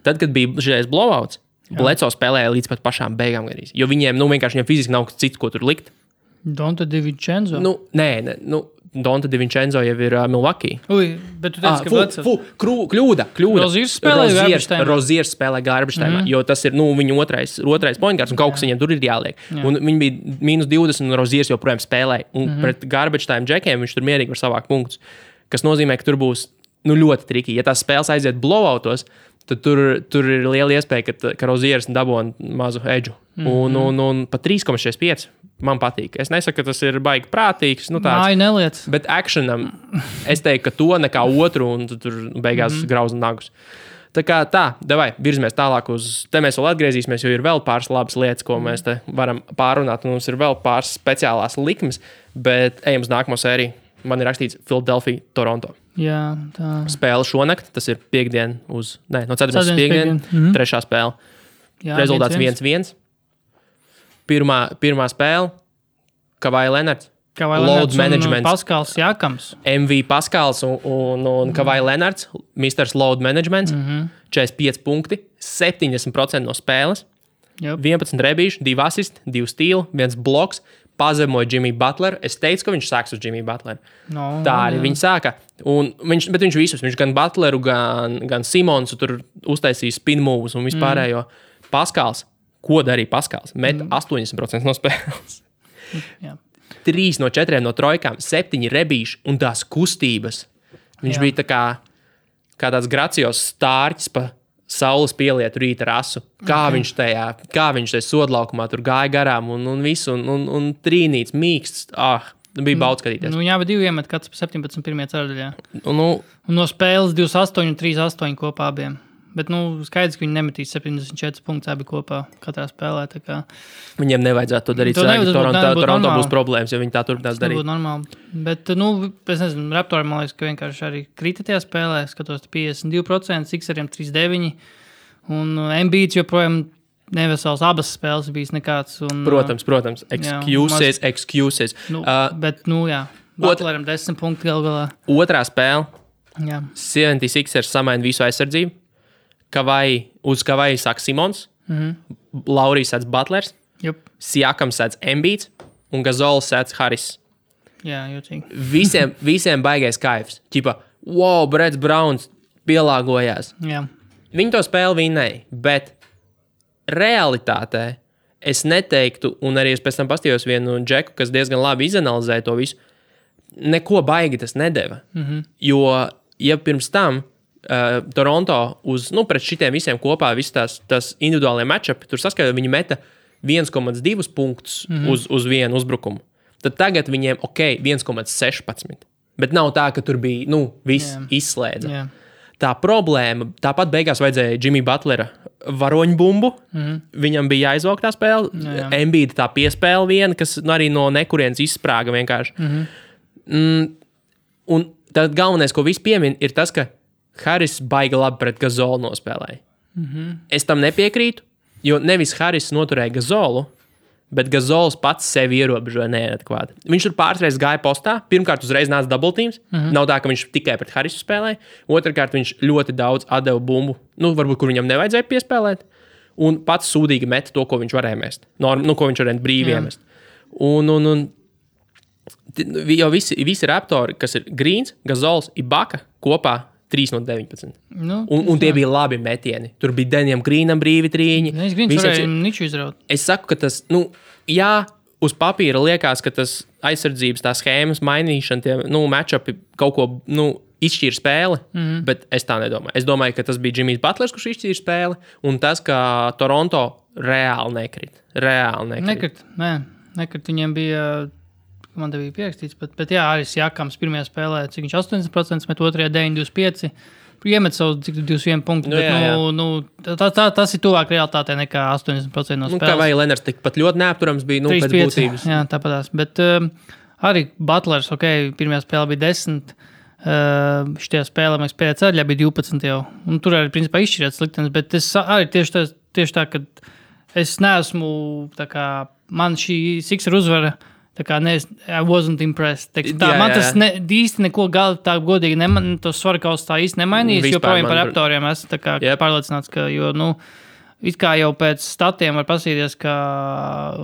Speaker 1: Tad, kad bija šis blowouts, Bledsoe spēlēja līdz pat pašām beigām garīs, jo viņiem vienkārši fiziski nav cits, ko tur likt.
Speaker 2: Donta DiVincenzo?
Speaker 1: Nē, Donta DiVincenzo jau ir Milwaukee.
Speaker 2: Bet tu teici, ka Bledsoe...
Speaker 1: Kļūda.
Speaker 2: Roziers
Speaker 1: spēlē garbage timā, jo tas ir viņa otrais point guards, un kaut kas viņiem tur ir jāliek. Un viņi bija -20, un Roziers joprojām spēlēja. Un pret garbage time džekiem viņš tur mierīgi var savākt punktus. Kas nozīmē, ka tur būs ļoti triki. Ja tās spēles aiziet blowoutos, tad tur ir liela iespēja, ka Roziers dabūna mazu edžu. Un pat 3,65 man patīk. Es nesaku, ka tas ir baigi prātīgs.
Speaker 2: Neliec.
Speaker 1: Bet actionam es teiktu, ka to nekā otru, un tur beigās grauzna nagus. Tā kā davai, virzamies tālāk uz... Te mēs vēl atgriezīsimies, jo ir vēl pāris labas lietas, ko mēs te varam pārunāt. Un mums ir vēl pāris speciālās likmes, bet ejam uz nākamo sēriju. Man ir rakstīts Philadelphia, Toronto.
Speaker 2: Jā, tā.
Speaker 1: Spēle šonakt, tas ir piekdien no 4. piekdien, trešā spēle. Jā, rezultāts 1-1. Pirmā spēle, Kawhi Leonards. Load management.
Speaker 2: Paskals Jākams.
Speaker 1: MV Paskals un Kawhi Leonards, Mr. Load Management, 45 punkti, 70% no spēles, 11 rebīši, 2 asisti, 2 stīli, 1 bloks, pazemoja Jimmy Butler. Es teicu, ka viņš sāks uz Jimmy Butler. Tā arī viņš sāka. Bet viņš visus, viņš gan Butleru, gan Simonsu tur uztaisīja spin moves un vispārējo. Paskals, ko darīja Paskals? Met 80% no spēles. 3 no 4 no trojkām, 7 rebīši un tās kustības. Viņš bija tā kā tāds gracios stārķis pa saules pielietu rīta rasu. Kā viņš tajā sodlaukumā tur gāja garām un visu, un trīnīts, mīksts. Bija baudz skatīties.
Speaker 2: Jā, bet 2 iemet kāds 17 pirmajā ceturdaļā. Un no spēles 28 un 3-8 kopā abiem. Bet, skaidrs, ka viņi nemetīs 74 punktus abi kopā katrā spēlē.
Speaker 1: Viņiem nevajadzētu to darīt. Toronto būs problēmas, jo viņi tā turpinās darīt.
Speaker 2: Tas būtu normāli. Bet, es nezinu, Raptori, man liekas, ka vienkārši arī krita tajā spēlē. Skatos 52%, Sixeriem 39%. Un Embiids joprojām nevesels abas spēles bijis nekāds.
Speaker 1: Protams. Excuses.
Speaker 2: Bet, jā. Butleram 10 punkti gal galā.
Speaker 1: Otrā spēle.
Speaker 2: Jā.
Speaker 1: 76ers samaina visu aizsardzību. Uz Kavai sāk Simons, Laurijs sēdz Butlers,
Speaker 2: Jup.
Speaker 1: Siakams sēdz Embiids un Gazols sēdz Harris.
Speaker 2: Jā, jūtīgi.
Speaker 1: Visiem baigais kaifs. Ķipa, wow, Breds Browns pielāgojās.
Speaker 2: Jā.
Speaker 1: Viņi to spēli vinnēja, bet realitātē es neteiktu, un arī es pēc tam pastījos vienu džeku, kas diezgan labi izanalizēja to visu, neko baigi tas nedeva. Jo, ja pirms tam Toronto pret šitiem visiem kopā, visas tās individuālie matchupi, tur saskaitā viņi meta 1,2 punktus uz vienu uzbrukumu. Tad tagad viņiem, 1,16. Bet nav tā, ka tur bija, viss izslēdza.
Speaker 2: Jā.
Speaker 1: Tā problēma, tāpat beigās vajadzēja Jimmy Butlera varoņbumbu. Viņam bija jāizvelk tā spēle. Embiida tā piespēle viena, kas arī no nekurienes izsprāga vienkārši. Un tad galvenais, ko visi piemin, ir tas, ka Harris baigi labi pret Gazolu nospēlēja. Es tam nepiekrītu, jo nevis Harris noturēja Gazolu, bet Gazols pats sevi ierobežoja neadekvāti. Viņš tur pāris gāja postā. Pirmkārt, uzreiz nāca double teams. Nav tā, ka viņš tikai pret Harrisu spēlēja. Otrkārt, viņš ļoti daudz atdeva bumbu, varbūt, kur viņam nevajadzēja piespēlēt. Un pats sūdīgi meta to, ko viņš varēja mest. Ko viņš varēja brīvi iemest. Un jau visi raptori, kas ir Greens, Gazols, Ibaka kopā 3 no 19. Un tie bija labi metieni. Tur bija Denijam Greenam brīvi trīņi.
Speaker 2: Greens varēja niču izraut.
Speaker 1: Es saku, ka tas, jā, uz papīra liekas, ka tas aizsardzības tā schēmas mainīšana, tie, matchupi kaut ko, izšķīra spēli, bet es tā nedomāju. Es domāju, ka tas bija Jimmys Butlers, kurš izšķīra spēli, un tas, ka Toronto reāli nekrit.
Speaker 2: Nekrit. Viņiem bija... Man te bija pierakstīts, bet jā, arī Siakams pirmajā spēlē, cik viņš 80% met, otrajā 9-25, iemet savus 21 punktu, bet tas ir tuvāk realitātei nekā 80% no spēles.
Speaker 1: Kā vai Lenars tikpat ļoti neapturams bija, pēc būtības.
Speaker 2: Jā, tāpatās, bet arī Butlers, pirmajā spēlē bija 10, šitajā spēlē, mēs pēdējā ceļā bija 12 jau, un tur arī, principā, izšķirēt sliktenes, bet es arī tieši tā, ka es neesmu, tā kā, man šī Sixer uzvara, tā kā I wasn't impressed. Man tas īsti neko tā godīgi tos svarkaus tā īsti nemainījis, jo projām par raptoriem esmu tā kā pārliecināts, ka, it kā jau pēc statiem var pasīties, ka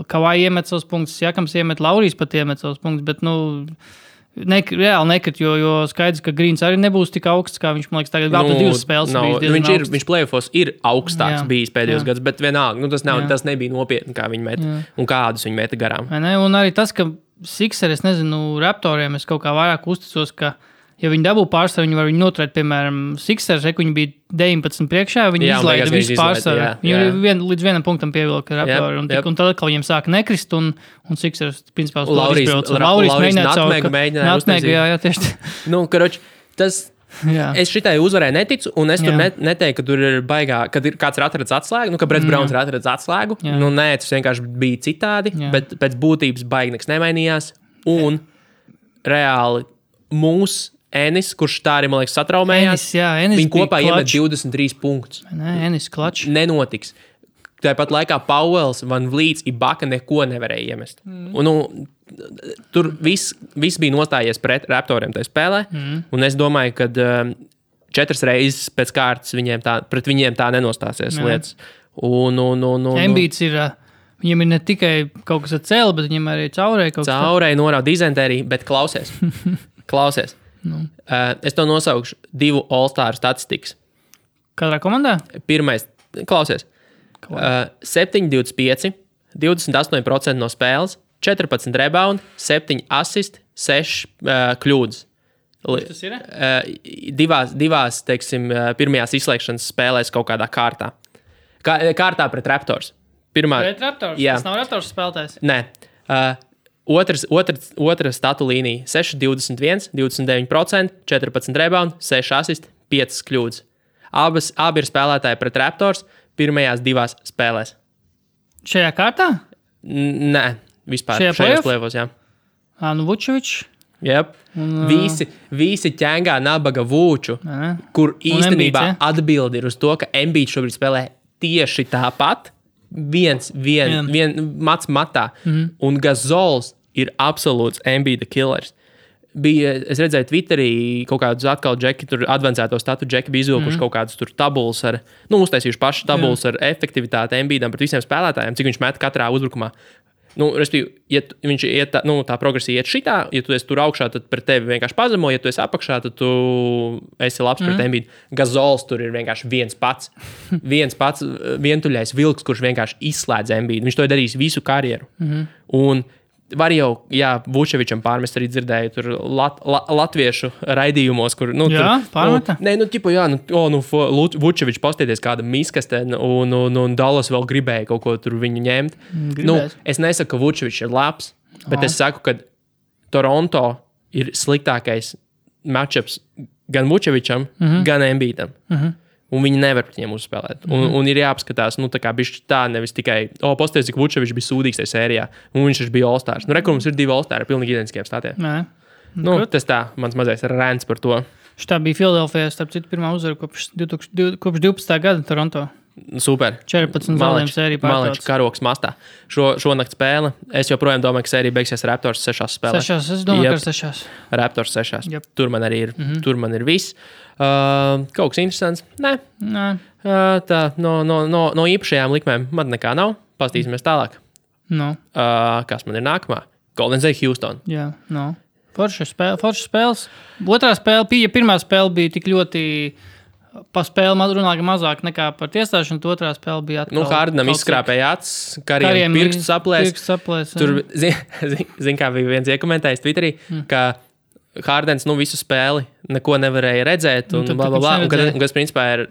Speaker 2: Kavai iemet savus punktus, Siakams iemet, Laurijs pat iemet savus punktus, bet, reāli nekrit, jo skaidrs, ka Greens arī nebūs tik augsts, kā viņš, man liekas, tagad vēl pēc 2 spēles. Viņš
Speaker 1: playoffos ir augstāks bijis pēdējos gads, bet vienalga, tas nebija nopietni, kā viņi meta un kādus viņi meta garām.
Speaker 2: Un arī tas, ka Sixer, es nezinu, raptoriem es kaut kā vairāk uzticos, ka ja viņi dabū pārsvaru, viņi var viņu noturēt, piemēram, Sixers, viņi bija 19 priekšā, viņi izlaida visu pārsvaru. Viņi līdz vienam punktam pievilka raptori, un tad atkal viņiem sāka nekrist, un Sixers, principā, uz to izbrauc. Laurijs mēģināja uztaisīt. Jā, tieši.
Speaker 1: Karoči, tas... Es šitai uzvarēju neticu, un es tur neteiktu, ka tur ir baigā, kad kāds ir atradis atslēgu, ka Breds Browns ir atradis atslēgu. Nē, tas vienkārši bija citādi, bet pēc būtības baigi nekas nemainījās, un reāli Enis, kurš tā arī, man liekas, satraumējās.
Speaker 2: Enis
Speaker 1: viņi kopā iemet 23 punktus.
Speaker 2: Enis klačs.
Speaker 1: Nenotiks. Tāpat laikā Pauels, Van Vliets, Ibaka neko nevarēja iemest. Tur viss bija nostājies pret raptoriem tajā spēlē, un es domāju, ka 4 reizes pēc kārtas pret viņiem tā nenostāsies lietas.
Speaker 2: Embiids ir... Viņam ir ne tikai kaut kas ar cēli, bet viņam arī caurēja kaut kas.
Speaker 1: Caurēja norāda dizentēriju, bet klausies. Es to nosaukšu 2 All-Star statistikas.
Speaker 2: Katrā komandā?
Speaker 1: Pirmais, klausies. 7-25, 28% no spēles, 14 rebound, 7 assist, 6 kļūdas.
Speaker 2: Tas ir?
Speaker 1: Divās, teiksim, pirmajās izslēgšanas spēlēs kaut kādā kārtā. Kārtā pret Raptors.
Speaker 2: Pret Raptors? Jā. Tas nav Raptors spēlētājs?
Speaker 1: Nē. Otra statu līnija 6-21, 29%, 14 rebound, 6 assist, 5 kļūdas. Abi ir spēlētāji pret Raptors pirmajās 2 spēlēs.
Speaker 2: Šajā kārtā?
Speaker 1: Nē, vispār. Šajos plēvos, jā.
Speaker 2: Vučevičs?
Speaker 1: Yep. Visi ķēngā nabaga Vūču, kur īstenībā atbildi ir uz to, ka Embiids šobrīd spēlē tieši tāpat, viens mats matā, un Gazols ir absolūts Embiida killers. es redzēju Twitterī kaut kādus atkal džeki, tur advancēto statu džeki bija izvilkuši kaut kādus tur tabulas ar, uztaisījuši paši tabulas ar efektivitāti Embiidam pret visiem spēlētājiem, cik viņš met katrā uzbrukumā. Respektīvi, ja viņš iet, tā progresija iet šitā, ja tu esi tur augšā, tad pret tevi vienkārši pazemo, ja tu esi apakšā, tad tu esi labs pret Embiidu. Gazols tur ir vienkārši viens pats vientuļais vilks, kurš vienkārši izslēdz Embiidu. Viņš to ir darījis visu karjeru. Un var jau, Vučevičam pārmest arī dzirdēju tur latviešu raidījumos, kur,
Speaker 2: pārmeta?
Speaker 1: Vučevičs pastieties kāda miskaste, un Dallas vēl gribēja kaut ko tur viņu ņemt. Es nesaku, ka Vučevičs ir labs, bet es saku, ka Toronto ir sliktākais matchups gan Vučevičam, gan Embiidam. Un viņi nevar pret viņiem uzspēlēt. Un ir jāapskatās, tā kā bišķi tā, nevis tikai, pasties, cik Vučevičs bija sūdīgs tajā sērijā, un viņš bija All-Stars. Rekur mums ir 2 All-Stars ar pilnīgi identiskiem statiem. Tas tā, mans mazais rants par to.
Speaker 2: Šitā bija Filadelfijā, starp citu, pirmā uzvara kopš 12. gada Toronto.
Speaker 1: Super.
Speaker 2: 14 zaudējumu sēriju pārtauc.
Speaker 1: Malečs karoks mastā. Šonakt spēle. Es joprojām domāju, ka sērija beigsies Raptors 6 spēlēs.
Speaker 2: 6, es domāju, ka 6.
Speaker 1: Raptors 6. Yep. Tur man arī ir, tur man ir viss. Kaut kas interesants? Nē. Tā, no īpašajām likmēm man nekā nav. Pastīsimies tālāk. Kas man ir nākamā? Golden State Houston.
Speaker 2: Jā, Forša spēles. Otrā spēle bija, pirmā spēle bija tik ļoti... Pa spēli runāja mazāk nekā par tiesāšanu, otrā spēle bija atkal.
Speaker 1: Hardenam izskrāpēja acis, Kariem pirkstu saplēs. Tur, zin, kā bija viens iekomentējis Twitterī, ka Hardens, visu spēli neko nevarēja redzēt, un blablabla, un kas principā ir,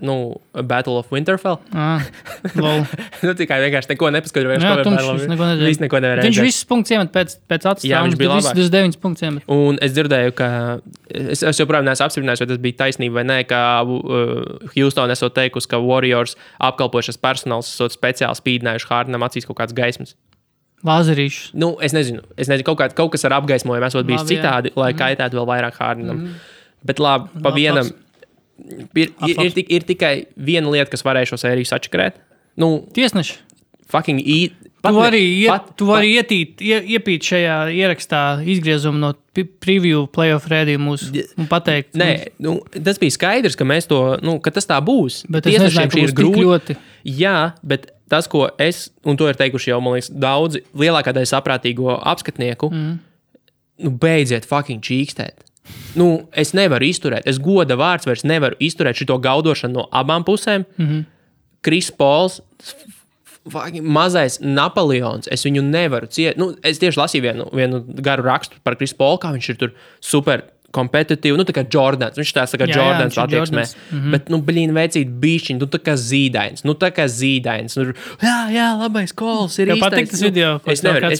Speaker 1: Battle of Winterfell. Tikai vienkārši neko nepaskaidroja. Viss neko nevarēja redzēt.
Speaker 2: Viņš visus punktus iemet pēc acis.
Speaker 1: Jā, viņš bija labāks.
Speaker 2: 29 punktus iemet.
Speaker 1: Un es dzirdēju, ka, es joprojām neesmu apstiprinājis, vai tas bija taisnība vai nē, ka Houston esot teikusi, ka Warriors apkalpojušas personāls esot speciāli spīdinājuši Hardenam acīs kaut kāds gaismas.
Speaker 2: Lāzerīšus.
Speaker 1: Es nezinu, kaut kas ar apgaismojumu esot bijis citādi, lai kaitētu vēl vairāk Hardenam. Bet labi, pa vienam ir tikai viena lieta, kas varēja šo sēriju sačakarēt.
Speaker 2: Tiesneši.
Speaker 1: Fucking
Speaker 2: Tu vari iepīt šajā ierakstā izgriezumu no preview playoff rēdījumu un pateikt.
Speaker 1: Nē, tas bija skaidrs, ka mēs to, ka tas tā būs.
Speaker 2: Bet es nezināju, ka būs tik ļoti.
Speaker 1: Jā, bet tas, ko es, un to ir teikuši jau, man liekas, daudzi lielākā daļa saprātīgo apskatnieku, beidziet fucking čīkstēt. Es nevaru izturēt, es goda vārds vairs nevaru izturēt šito gaudošanu no abām pusēm. Chris Pauls, mazais Napoleons, es viņu nevaru ciet. Es tieši lasīju vienu garu rakstu par Chris Paulu, kā viņš ir tur super kompetitīvi, tā kā Jordans. Viņš tā kā Jordans attieksmē. Bet, veicīt bišķiņ, tā kā zīdains. Jā, labais kols ir īstais.
Speaker 2: Patīk tas video, ko
Speaker 1: es nevaru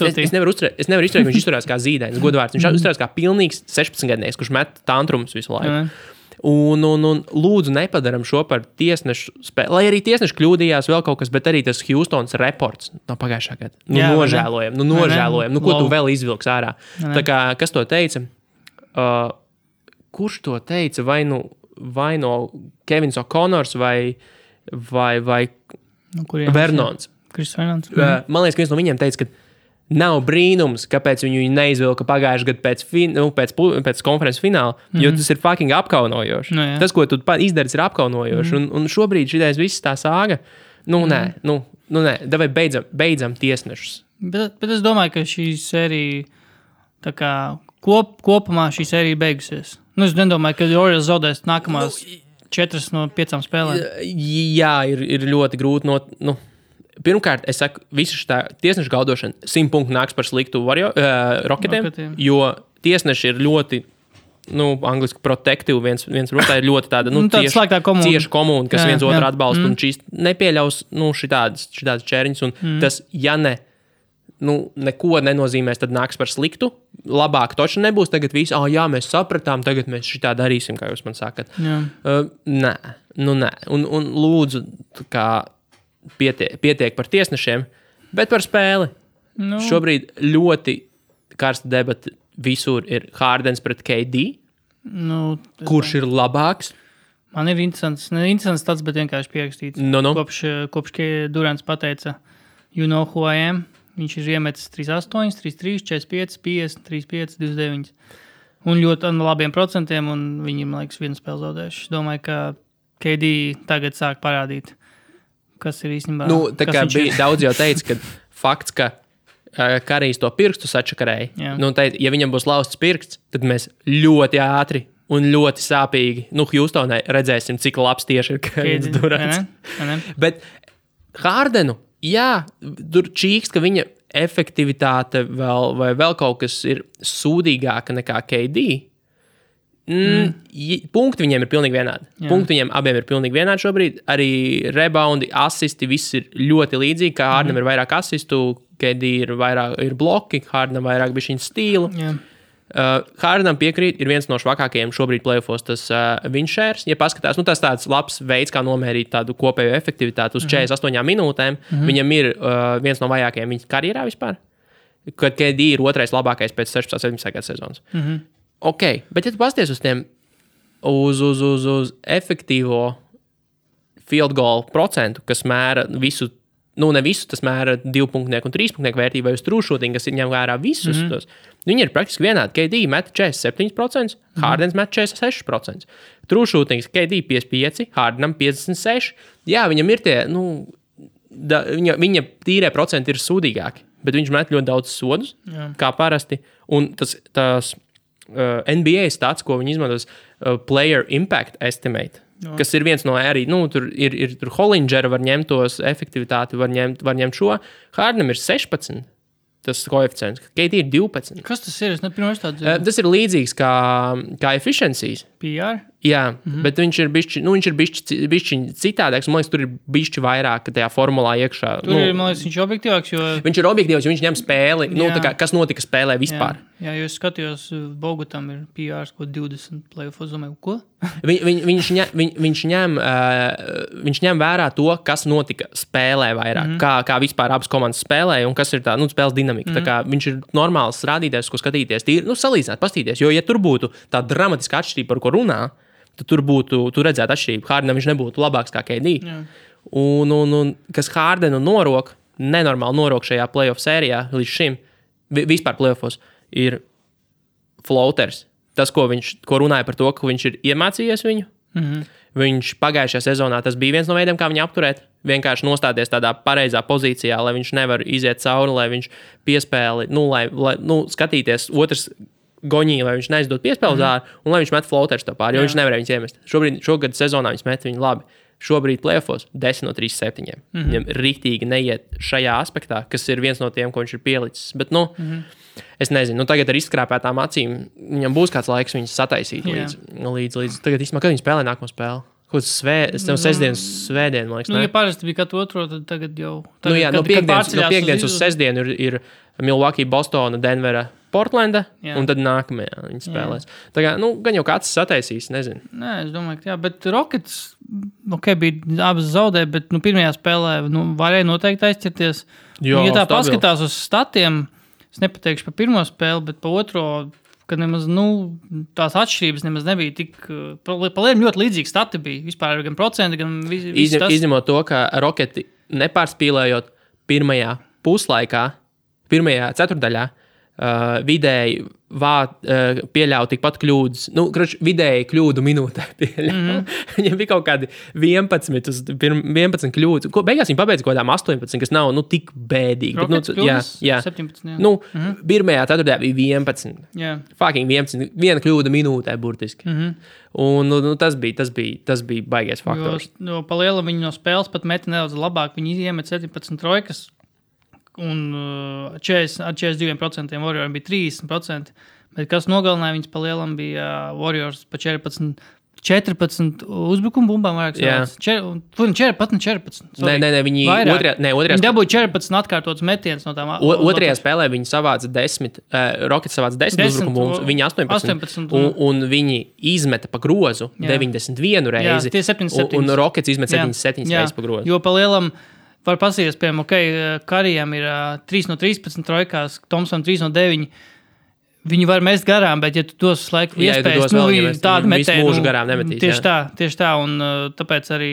Speaker 1: izturēt, viņš izturās kā zīdains, godvārds. Viņš izturās kā pilnīgs 16-gadnieks, kurš met tantrumus visu laiku. Un lūdzu nepadaram šo par tiesnešu spēli. Lai arī tiesneši kļūdījās vēl kaut kas, bet arī tas Houstons reports no pagājušā gada. Nožēlojam. Ko tu vēl izvilks ārā? Tā kā, kas to teica? Kurš to teica? Vai no Kevins O'Connors vai Vernons?
Speaker 2: Chris Vernons.
Speaker 1: Man liekas, ka viens no viņiem teica, ka nav brīnums, kāpēc viņu neizvilka pagājušajā gadā pēc konferences fināla, jo tas ir fucking apkaunojoši. Tas, ko tu izdarīsi, ir apkaunojoši. Un šobrīd šitais viss tā sāga. Nē. Davai beidzam tiesnešus.
Speaker 2: Bet es domāju, ka šī sērija tā kā kopumā šī sērija beigusies. Es nedomāju, ka Warriors zaudēs nākamās 4 no 5 spēlēm.
Speaker 1: Jā, ir ļoti grūti. Pirmkārt, es saku, visu šitā tiesnešu gaudošana 100 punktu nāks par sliktu Rocketiem, jo tiesneši ir ļoti, angliski protective, viens rotā ir ļoti tāda, cieša komūna, kas viens otru atbalsta, un šīs nepieļaus, šitādas čēriņas, un tas, ja ne, neko nenozīmēs, tad nāks par sliktu. Labāk toči nebūs. Tagad viss, jā, mēs sapratām, tagad mēs šitā darīsim, kā jūs man sakat. Nē. Un lūdzu, kā pietiek par tiesnešiem, bet par spēli. Šobrīd ļoti karsta debata visur ir Hardens pret KD. Kurš ir labāks?
Speaker 2: Man ir interesants tāds, bet vienkārši pierakstīts. Kopš Durants pateica, you know who I am. Viņš ir iemetis 3-8, 3-3, 45, 50, 35, 29. Un ļoti labiem procentiem, un viņi, man liekas, vienu spēli zaudējuši. Es domāju, ka KD tagad sāk parādīt, kas ir īstenībā.
Speaker 1: Tā kā bija daudz jau teica, ka fakts, ka Karijs to pirkstu sačakarēja. Teica, ja viņam būs lausts pirksts, tad mēs ļoti ātri un ļoti sāpīgi, Hjūstonai redzēsim, cik labs tieši ir Kevins Durants. Bet Hardenu, jā, tur čīkst, ka viņa efektivitāte vai vēl kaut kas ir sūdīgāka nekā KD. Punkti viņiem ir pilnīgi vienādi. Punkti viņiem abiem ir pilnīgi vienādi šobrīd. Arī reboundi, asisti, viss ir ļoti līdzīgi. Kā Hardenam ir vairāk asistu, KD ir bloki, Hardenam vairāk bišķiņu stīlu. Hardenam piekrīt, ir viens no švakākajiem šobrīd playoffos tas win shares. Ja paskatās, tas tāds labs veids, kā nomērīt tādu kopējo efektivitāti uz 48 minūtēm. Viņam ir viens no vajākajiem viņa karjerā vispār. Kad KD ir otrais labākais pēc 16-17 gadu sezonas. Ok, bet ja tu pasties uz tiem uz efektīvo field goal procentu, kas mēra visu, ne visu, tas mēra 2-punktnieku un 3-punktnieku vērtību vai uz true shooting, kas ir ņem vērā visus tos. Viņi ir praktiski vienādi. KD met 47%, Hardens met 46%. True shooting, KD 55%, Hardenam 56%. Jā, viņam ir tie, viņa tīrē procenti ir sūdīgāki, bet viņš met ļoti daudz sodus, kā parasti. Un tas NBA stats, ko viņi izmantos, player impact estimate, kas ir viens no arī, tur ir Hollinger var ņemt tos efektivitāti, var ņemt šo. Hardenam ir 16. Tas koeficients. KD ir 12.
Speaker 2: Kas tas ir? Es nepirmais tādu dzirdu.
Speaker 1: Tas ir līdzīgs kā efficiencies.
Speaker 2: PR?
Speaker 1: Jā, bet viņš ir bišķi citādāks. Man liekas, tur ir bišķi vairāk tajā formulā iekšā.
Speaker 2: Tur ir, man liekas, viņš ir objektīvāks, jo...
Speaker 1: Viņš ir objektīvs, jo viņš ņem spēli. Kas notika spēlē vispār.
Speaker 2: Jā, jo es skatījos, Bogutam ir PRs, ko 20 playoffs, domāju, ko?
Speaker 1: Viņš ņem vērā to, kas notika spēlē vairāk, kā vispār abas komandas spēlē un kas ir tā, spēles dinamika. Tā kā viņš ir normāls rādītājs, ko skatīties, salīdzināt, pastīties, jo ja tur būtu tā dramatiska atšķirība, par ko runā, tad tur redzētu atšķirību. Hardenam viņš nebūtu labāks kā KD. Un kas Hardenu norok, nenormāli norok šajā playoff sērijā līdz šim, vispār playoffos, ir floaters. Tas, ko runāja par to, ka viņš ir iemācījies viņu. Viņš pagājušajā sezonā, tas bija viens no veidiem, kā viņu apturēt. Vienkārši nostāties tādā pareizā pozīcijā, lai viņš nevar iziet cauri, lai viņš piespēli, lai skatīties otrs goņī, lai viņš neizdod piespēli uz āru, un lai viņš met floaters tā pāri, jo viņš nevarēja viņus iemest. Šogad sezonā viņš met viņu labi. Šobrīd playoffos 10 no 37. Viņam riktīgi neiet šajā aspektā, kas ir viens no tiem, ko viņš ir pielicis. Bet, es nezinu, tagad ar izskrāpētām acīm viņam būs kāds laiks viņus sataisīt līdz. Tagad īstenībā, kad viņi spēlē nākamo spēli? Kaut kas svētdien, man liekas.
Speaker 2: Ja parasti bija katru otro, tad tagad jau...
Speaker 1: No piekdienas uz sestdienu ir Milwaukee, Bostona, Denvera, Portlanda, un tad nākamajā viņi spēlēs. Tā kā, gan jau kāds sataisīs, nezinu.
Speaker 2: Nē, es domāju, ka jā, bet Rockets, bija abas zaudē, bet pirmajā spēlē varēja noteikti aizķerties. Ja tā paskatās uz statiem, es nepateikšu par pirmo spēli, bet par otro, kad nemaz, tās atšķirības nemaz nebija tik, paliem ļoti līdzīgi stati bija, vispār gan procenti, gan viss tas.
Speaker 1: Izņemot to, ka Rocketi nepārspīlējot pirmajā puslaikā, pirmajā ceturdaļā, vidēji pieļauj tikpat kļūdas. Vidēji kļūdu minūtē pieļauj. Viņam bija kaut kādi 11 kļūdas. Beigās viņi pabeidza kaut kādām 18, kas nav tik bēdīgi.
Speaker 2: Rockets kļūdas? 17, jā.
Speaker 1: Pirmajā ceturtajā bija 11.
Speaker 2: Jā.
Speaker 1: Fucking 11. Viena kļūda minūtē burtiski. Un tas bija baigais faktors.
Speaker 2: Jo palielam viņi no spēles pat meti nedaudz labāk. Viņi iemet 17 trojkas. Un 42% Warriors bija 30%, bet kas nogalināja viņus palielam bija Warriors pa 14 uzbrukumu bumbām vairāk savāc. 14.
Speaker 1: Nē, viņi otrajā
Speaker 2: dabūja 14 atkārtotas metienas no tām.
Speaker 1: Otrajā spēlē viņi savāca 10, Rockets savāca 10 uzbrukumu bumbas, viņi 18 un viņi izmeta pa grozu 91 reizi.
Speaker 2: Jā, tie 77.
Speaker 1: Un Rockets izmet 77 reizes pa grozu.
Speaker 2: Jo palielam var pasīties, piemēram, Karijam ir 3 no 13 trojkās, Thompson 3 no 9. Viņi var mest garām, bet, ja tu dos laiku iespējas, tādu metienu.
Speaker 1: Mūžu garām nemetīs.
Speaker 2: Tieši tā, un tāpēc arī,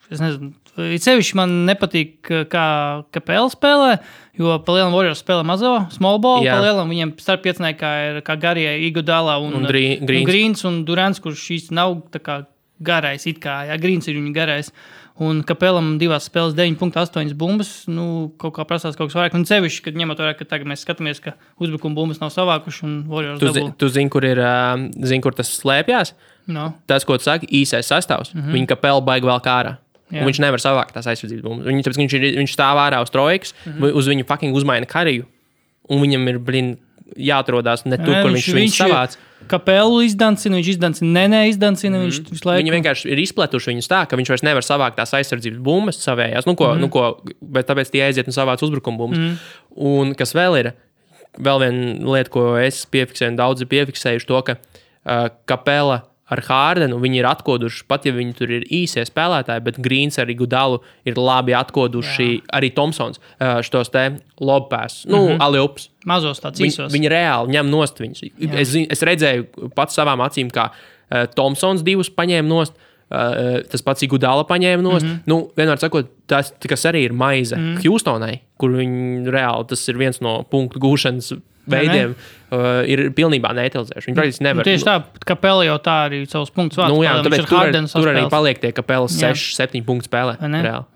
Speaker 2: es nezinu, sevišķi man nepatīk, kā Capela spēlē, jo pa lielam Warriors spēlē mazo, small ball, pa lielam viņiem starp pieciniekā ir kā garie Iguodala un Greens un Durants, kurš īsti nav tā kā garais, it kā, Greens ir viņa garais. Un Capelam 2 spēles 9.8 bumbas, kaut kā prasās kaut kas vairāk. Un sevišķi, kad ņemot vairāk, ka tagad mēs skatāmies, ka uzbrukuma bumbas nav savākuši un Warriors dabū.
Speaker 1: Tu zini, kur tas slēpjās?
Speaker 2: No.
Speaker 1: Tas, ko tu saki, īsais sastāvs. Viņa Capela baigi vēl kā ārā. Viņš nevar savākt tās aizsardzības bumbas. Tāpēc viņš stāv ārā uz trojkas, uz viņu fucking uzmaina kariju. Un viņam ir, jāatrodās ne tur, kur viņš savāc.
Speaker 2: Capelu izdancina, viņš izdancina, izdancina, viņš visu laiku.
Speaker 1: Viņi vienkārši ir izpletuši viņus tā, ka viņš vairs nevar savākt tās aizsardzības bumbas savējās, bet tāpēc tie aiziet un savāc uzbrukuma bumbas. Un kas vēl ir, vēl viena lieta, ko es piefiksēju, un daudzi piefiksējuši to, ka Capela ar Hardenu viņi ir atkoduši, pat ja viņi tur ir īsie spēlētāji, bet Greens ar Iguodalu ir labi atkoduši, arī Thompsons šitos te lobpēs, alley-oops.
Speaker 2: Mazos tāds īsos.
Speaker 1: Viņi reāli ņem nost viņus. Es redzēju pats savām acīm, kā Thompsons 2 paņēma nost, tas pats Iguodala paņēma nost. Vienmēr sakot, tas, kas arī ir maize Houstonai, kur viņi reāli, tas ir viens no punktu gūšanas veidiem, ir pilnībā neutralizējuši. Viņi praktiski nevar.
Speaker 2: Tieši tā, Capela jau tā arī savus punktus vārds.
Speaker 1: Tāpēc tur arī paliek tie Capelas 6-7 punktu spēlē.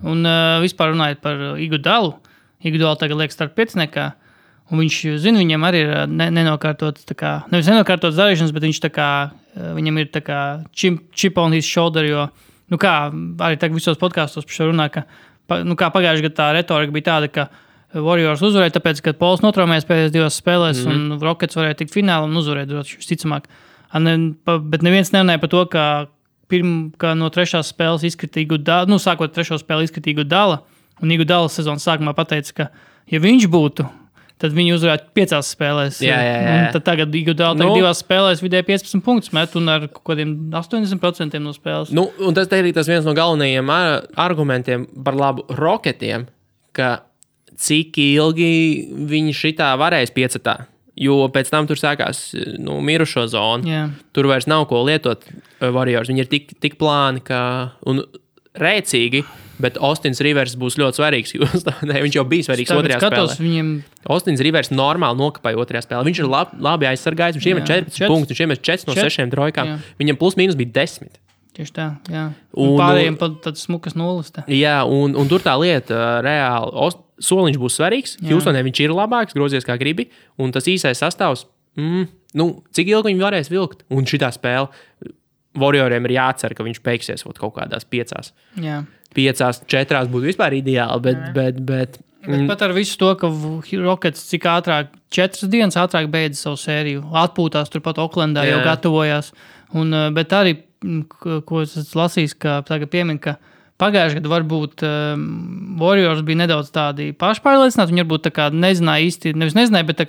Speaker 2: Un vispār runājot par Iguodalu, Iguodala tagad liek starp pieciniekā, un viņš, viņam arī ir nenokārtots, nevis nenokārtots darīšanas, bet viņš viņam ir chip on his shoulder, jo, arī tagad visos podkastos par šo runā, ka, kā pagājušajā gadā tā retorika bija tāda, ka Warriors uzvarēja, tāpēc, ka Pols notraumējās pēdējās 2 spēlēs, un Rockets varēja tikt finālu un uzvarēt, visticamāk. Bet neviens nerunāja par to, ka no 3. spēles izkritīja Iguodala, sākot 3. spēli izkritīja Iguodala, un Iguodala sezonas sākumā pateica, ka, ja viņš būtu, tad viņi uzvarētu 5 spēlēs. Un tad tagad Iguodala 2 spēlēs vidēji 15 punktus met un ar kādiem 80% no spēles.
Speaker 1: Un tas ir tas viens no galvenajiem argumentiem par labu Rocketiem, ka cik ilgi viņi šitā varēs piecetā, jo pēc tam tur sākās mirušo zonu. Tur vairs nav ko lietot Warriors. Viņi ir tik plāni un rēcīgi, bet Austins Rivers būs ļoti svarīgs. Viņš jau bija svarīgs otrajā spēlē. Austins Rivers normāli nokapāja otrajā spēlē. Viņš ir labi aizsargājis. Viņš iemet 14 punktus, viņš iemet 4 no 6 trojkām. Viņam plus mīnus bija 10.
Speaker 2: Tieši tā, jā. Un pārējiem pat tāds smukas nulles.
Speaker 1: Jā, un tur tā lieta reāli. Soliņš būs svarīgs. Houstonē viņš ir labāks, grozies kā gribi. Un tas īsais sastāvs, cik ilgi viņi varēs vilkt. Un šitā spēle Warrioriem ir jācer, ka viņš beigsies kaut kādās 5.
Speaker 2: Jā.
Speaker 1: 5-4 būtu vispār ideāli, bet
Speaker 2: pat ar visu to, ka Rockets cik ātrāk, 4 dienas ātrāk beidza savu sēriju. Atpūtās turpat Oklendā, jau gatavojās. Bet arī, ko es lasīju, ka tagad piemin, ka pagājušajā gadā varbūt Warriors bija nedaudz tādi pašpārliecināti. Viņi varbūt nezināja īsti, nevis nezināja, bet tā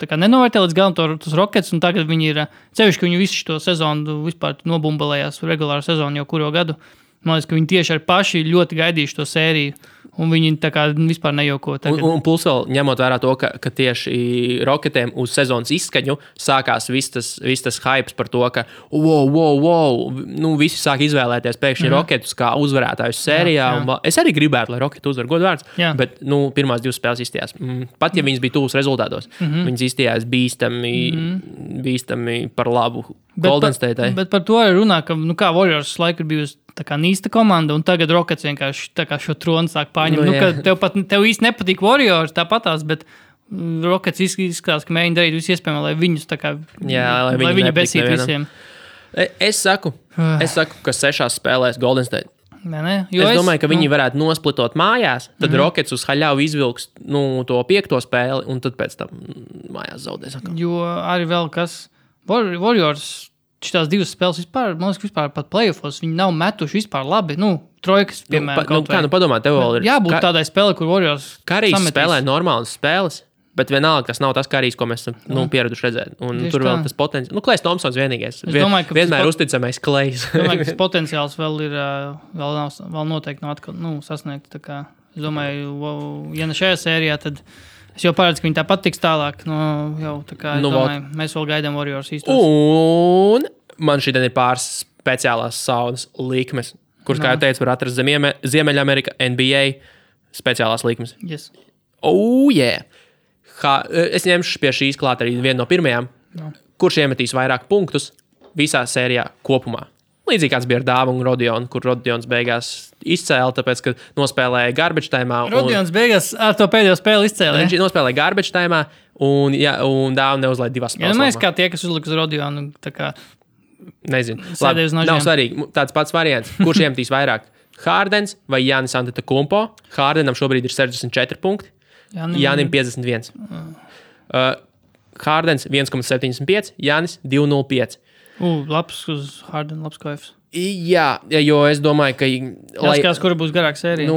Speaker 2: kā nenovērtē līdz galam tos Rockets, un tagad viņi ir, cevišķi, ka viņi visu šo sezonu vispār nobumbalējās regulāru sezonu jau kuro gadu. Man liekas, ka viņi tieši ar paši ļoti gaidījuši to sēriju, un viņi tā kā vispār nejauko.
Speaker 1: Un plus vēl ņemot vērā to, ka tieši Rocketiem uz sezonas izskaņu sākās viss tas hypes par to, ka wow, visi sāk izvēlēties pēkšņi Rocketus kā uzvarētājus sērijā. Jā. Es arī gribētu, lai Rocketi uzvar godvārds, bet pirmās 2 spēles izstījās. Pat ja viņas bija tuvas rezultātos, viņas izstījās bīstami par labu Golden State'ai.
Speaker 2: Bet par to arī runā, ka kā Warriors laiku ir bijusi tā kā nīsta komanda, un tagad Rockets vienkārši tā kā šo tronu sāk pārņemt. Tev īsti nepatīk Warriors tāpatās, bet Rockets izskatās, ka mēģina darīt visu iespējamo, lai viņus tā kā, lai viņi besīt visiem.
Speaker 1: Es saku, ka 6 spēlēs Golden State. Es domāju, ka viņi varētu nosplitot mājās, tad Rockets uz haļavu izvilks to 5. spēli, un tad pēc tam mājās zaudēs.
Speaker 2: Jo arī vēl kas Warriors šitās 2 spēles vispār, man liekas, vispār pat playoffos, viņi nav metuši vispār labi. Trojkas, piemēram.
Speaker 1: Padomā, tev vēl ir.
Speaker 2: Jābūt tādai spēlē, kur Warriors
Speaker 1: Karijs spēlē normālas spēles, bet vienalga, tas nav tas Karijs, ko mēs pieraduši redzēt. Un tur vēl tas potenciāls. Klejs Thompsons vienīgais. Vienmēr uzticamais Klejs.
Speaker 2: Es domāju, ka tas potenciāls vēl ir, vēl noteikti nav atkal, sasniegt tā kā Es domāju, ja ne šajā sērijā, tad es jau paredzu, ka viņi tāpat tiks tālāk. Jau tā kā, domāju, mēs vēl gaidām Warriors īstos.
Speaker 1: Un man šodien ir pāris speciālās saunas likmes, kuras, kā jau teicu, var atrast Ziemeļamerika, NBA speciālās likmes.
Speaker 2: Yes.
Speaker 1: Yeah! Es ņemšu pie šīs klāt arī vienu no pirmajām. Kurš iemetīs vairāk punktus visā sērijā kopumā? Līdzīgi kāds bija ar Dāvu un Rodionu, kur Rodions beigās izcēla, tāpēc, ka nospēlēja garbage timā.
Speaker 2: Rodions beigās ar to pēdējo spēli izcēla.
Speaker 1: Viņš nospēlēja garbage timā, un Dāvu neuzlaid divas spēles.
Speaker 2: Mēs kā tie, kas uzliks Rodionu, tā kā...
Speaker 1: Nezinu. Labi, nav svarīgi. Tāds pats variants. Kurš iemetīs vairāk? Hardens vai Jānis Antetokounmpo? Hardenam šobrīd ir 64 punkti. Jānim 51. Hardens 1,75, Jānis 2,05.
Speaker 2: Labs uz Harden, labs koefs.
Speaker 1: Jā, jo es domāju, ka...
Speaker 2: Jāskās, kura būs garāka sērija.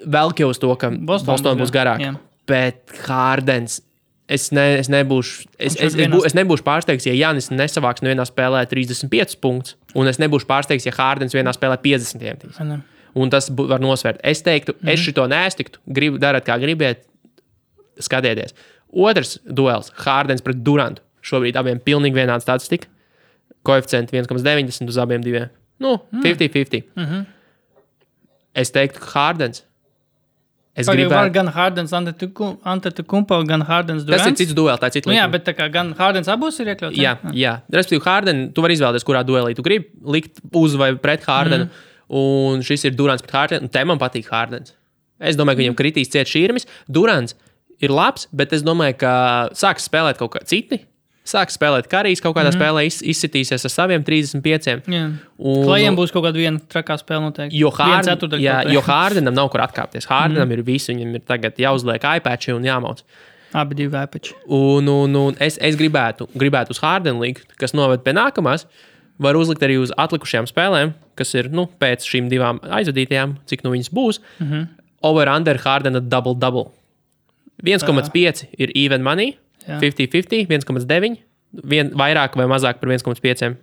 Speaker 1: Vēl jau uz to, ka Boston būs garāka. Bet Hardens... Es nebūšu pārsteigts, ja Jānis nesavāks nevienā spēlē 35 punktus, un es nebūšu pārsteigts, ja Hardens vienā spēlē 50 iemetīs. Un tas var nosvērt. Es teiktu, es šito neestiktu, dariet kā gribiet, skatieties. Otrs duels, Hardens pret Durantu. Šobrīd abiem pilnīgi vienāda statistika. Koeficienti 1,90 uz abiem diviem. 50-50. Es teiktu, ka Hardens. Es gribētu...
Speaker 2: Gan Hardens Antetokounmpo, gan Hardens Durants.
Speaker 1: Tas ir cits duels, tā ir cits likums.
Speaker 2: Jā, bet tā kā gan Hardens abos ir iekļauts.
Speaker 1: Jā. Respektīvi, Harden, tu vari izvēlēties, kurā duelī tu gribi likt uz vai pret Hardenu. Un šis ir Durants pret Hardenu, un te man patīk Hardens. Es domāju, ka viņam kritīs ciet šķirmis. Durants ir labs, bet es domāju, ka sāks spēlēt kaut kā citi. Sāks spēlēt Karijs kaut kādā spēlē, izsitīsies ar saviem 35.
Speaker 2: Klajiem būs kaut kāda viena trakā spēle noteikti.
Speaker 1: Jo Hardenam nav kur atkāpties. Hardenam ir visu, viņam ir tagad jāuzliek iPatchi un jāmauc.
Speaker 2: Abi divi iPatchi.
Speaker 1: Un es gribētu uz Hardenu likt, kas noved pie nākamās. Var uzlikt arī uz atlikušajām spēlēm, kas ir pēc šīm divām aizvadītajām, cik viņas būs. Over-under Hardena double-double. 1,5 ir even money. 50-50, 1,9, vairāk vai mazāk par 1,5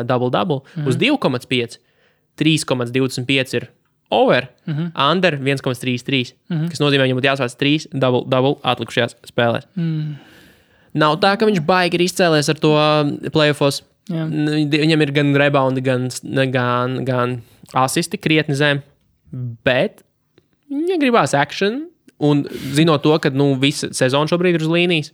Speaker 1: double-double. Uz 2,5, 3,25 ir over, under 1,33, kas nozīmē, viņam būtu jāsvāc 3 double-double atlikušajās spēlēs. Nav tā, ka viņš baigi ir izcēlies ar to playoffos. Viņam ir gan reboundi, gan asisti krietni zem, bet viņa gribās action. Un zinot to, ka visa sezona šobrīd ir uz līnijas,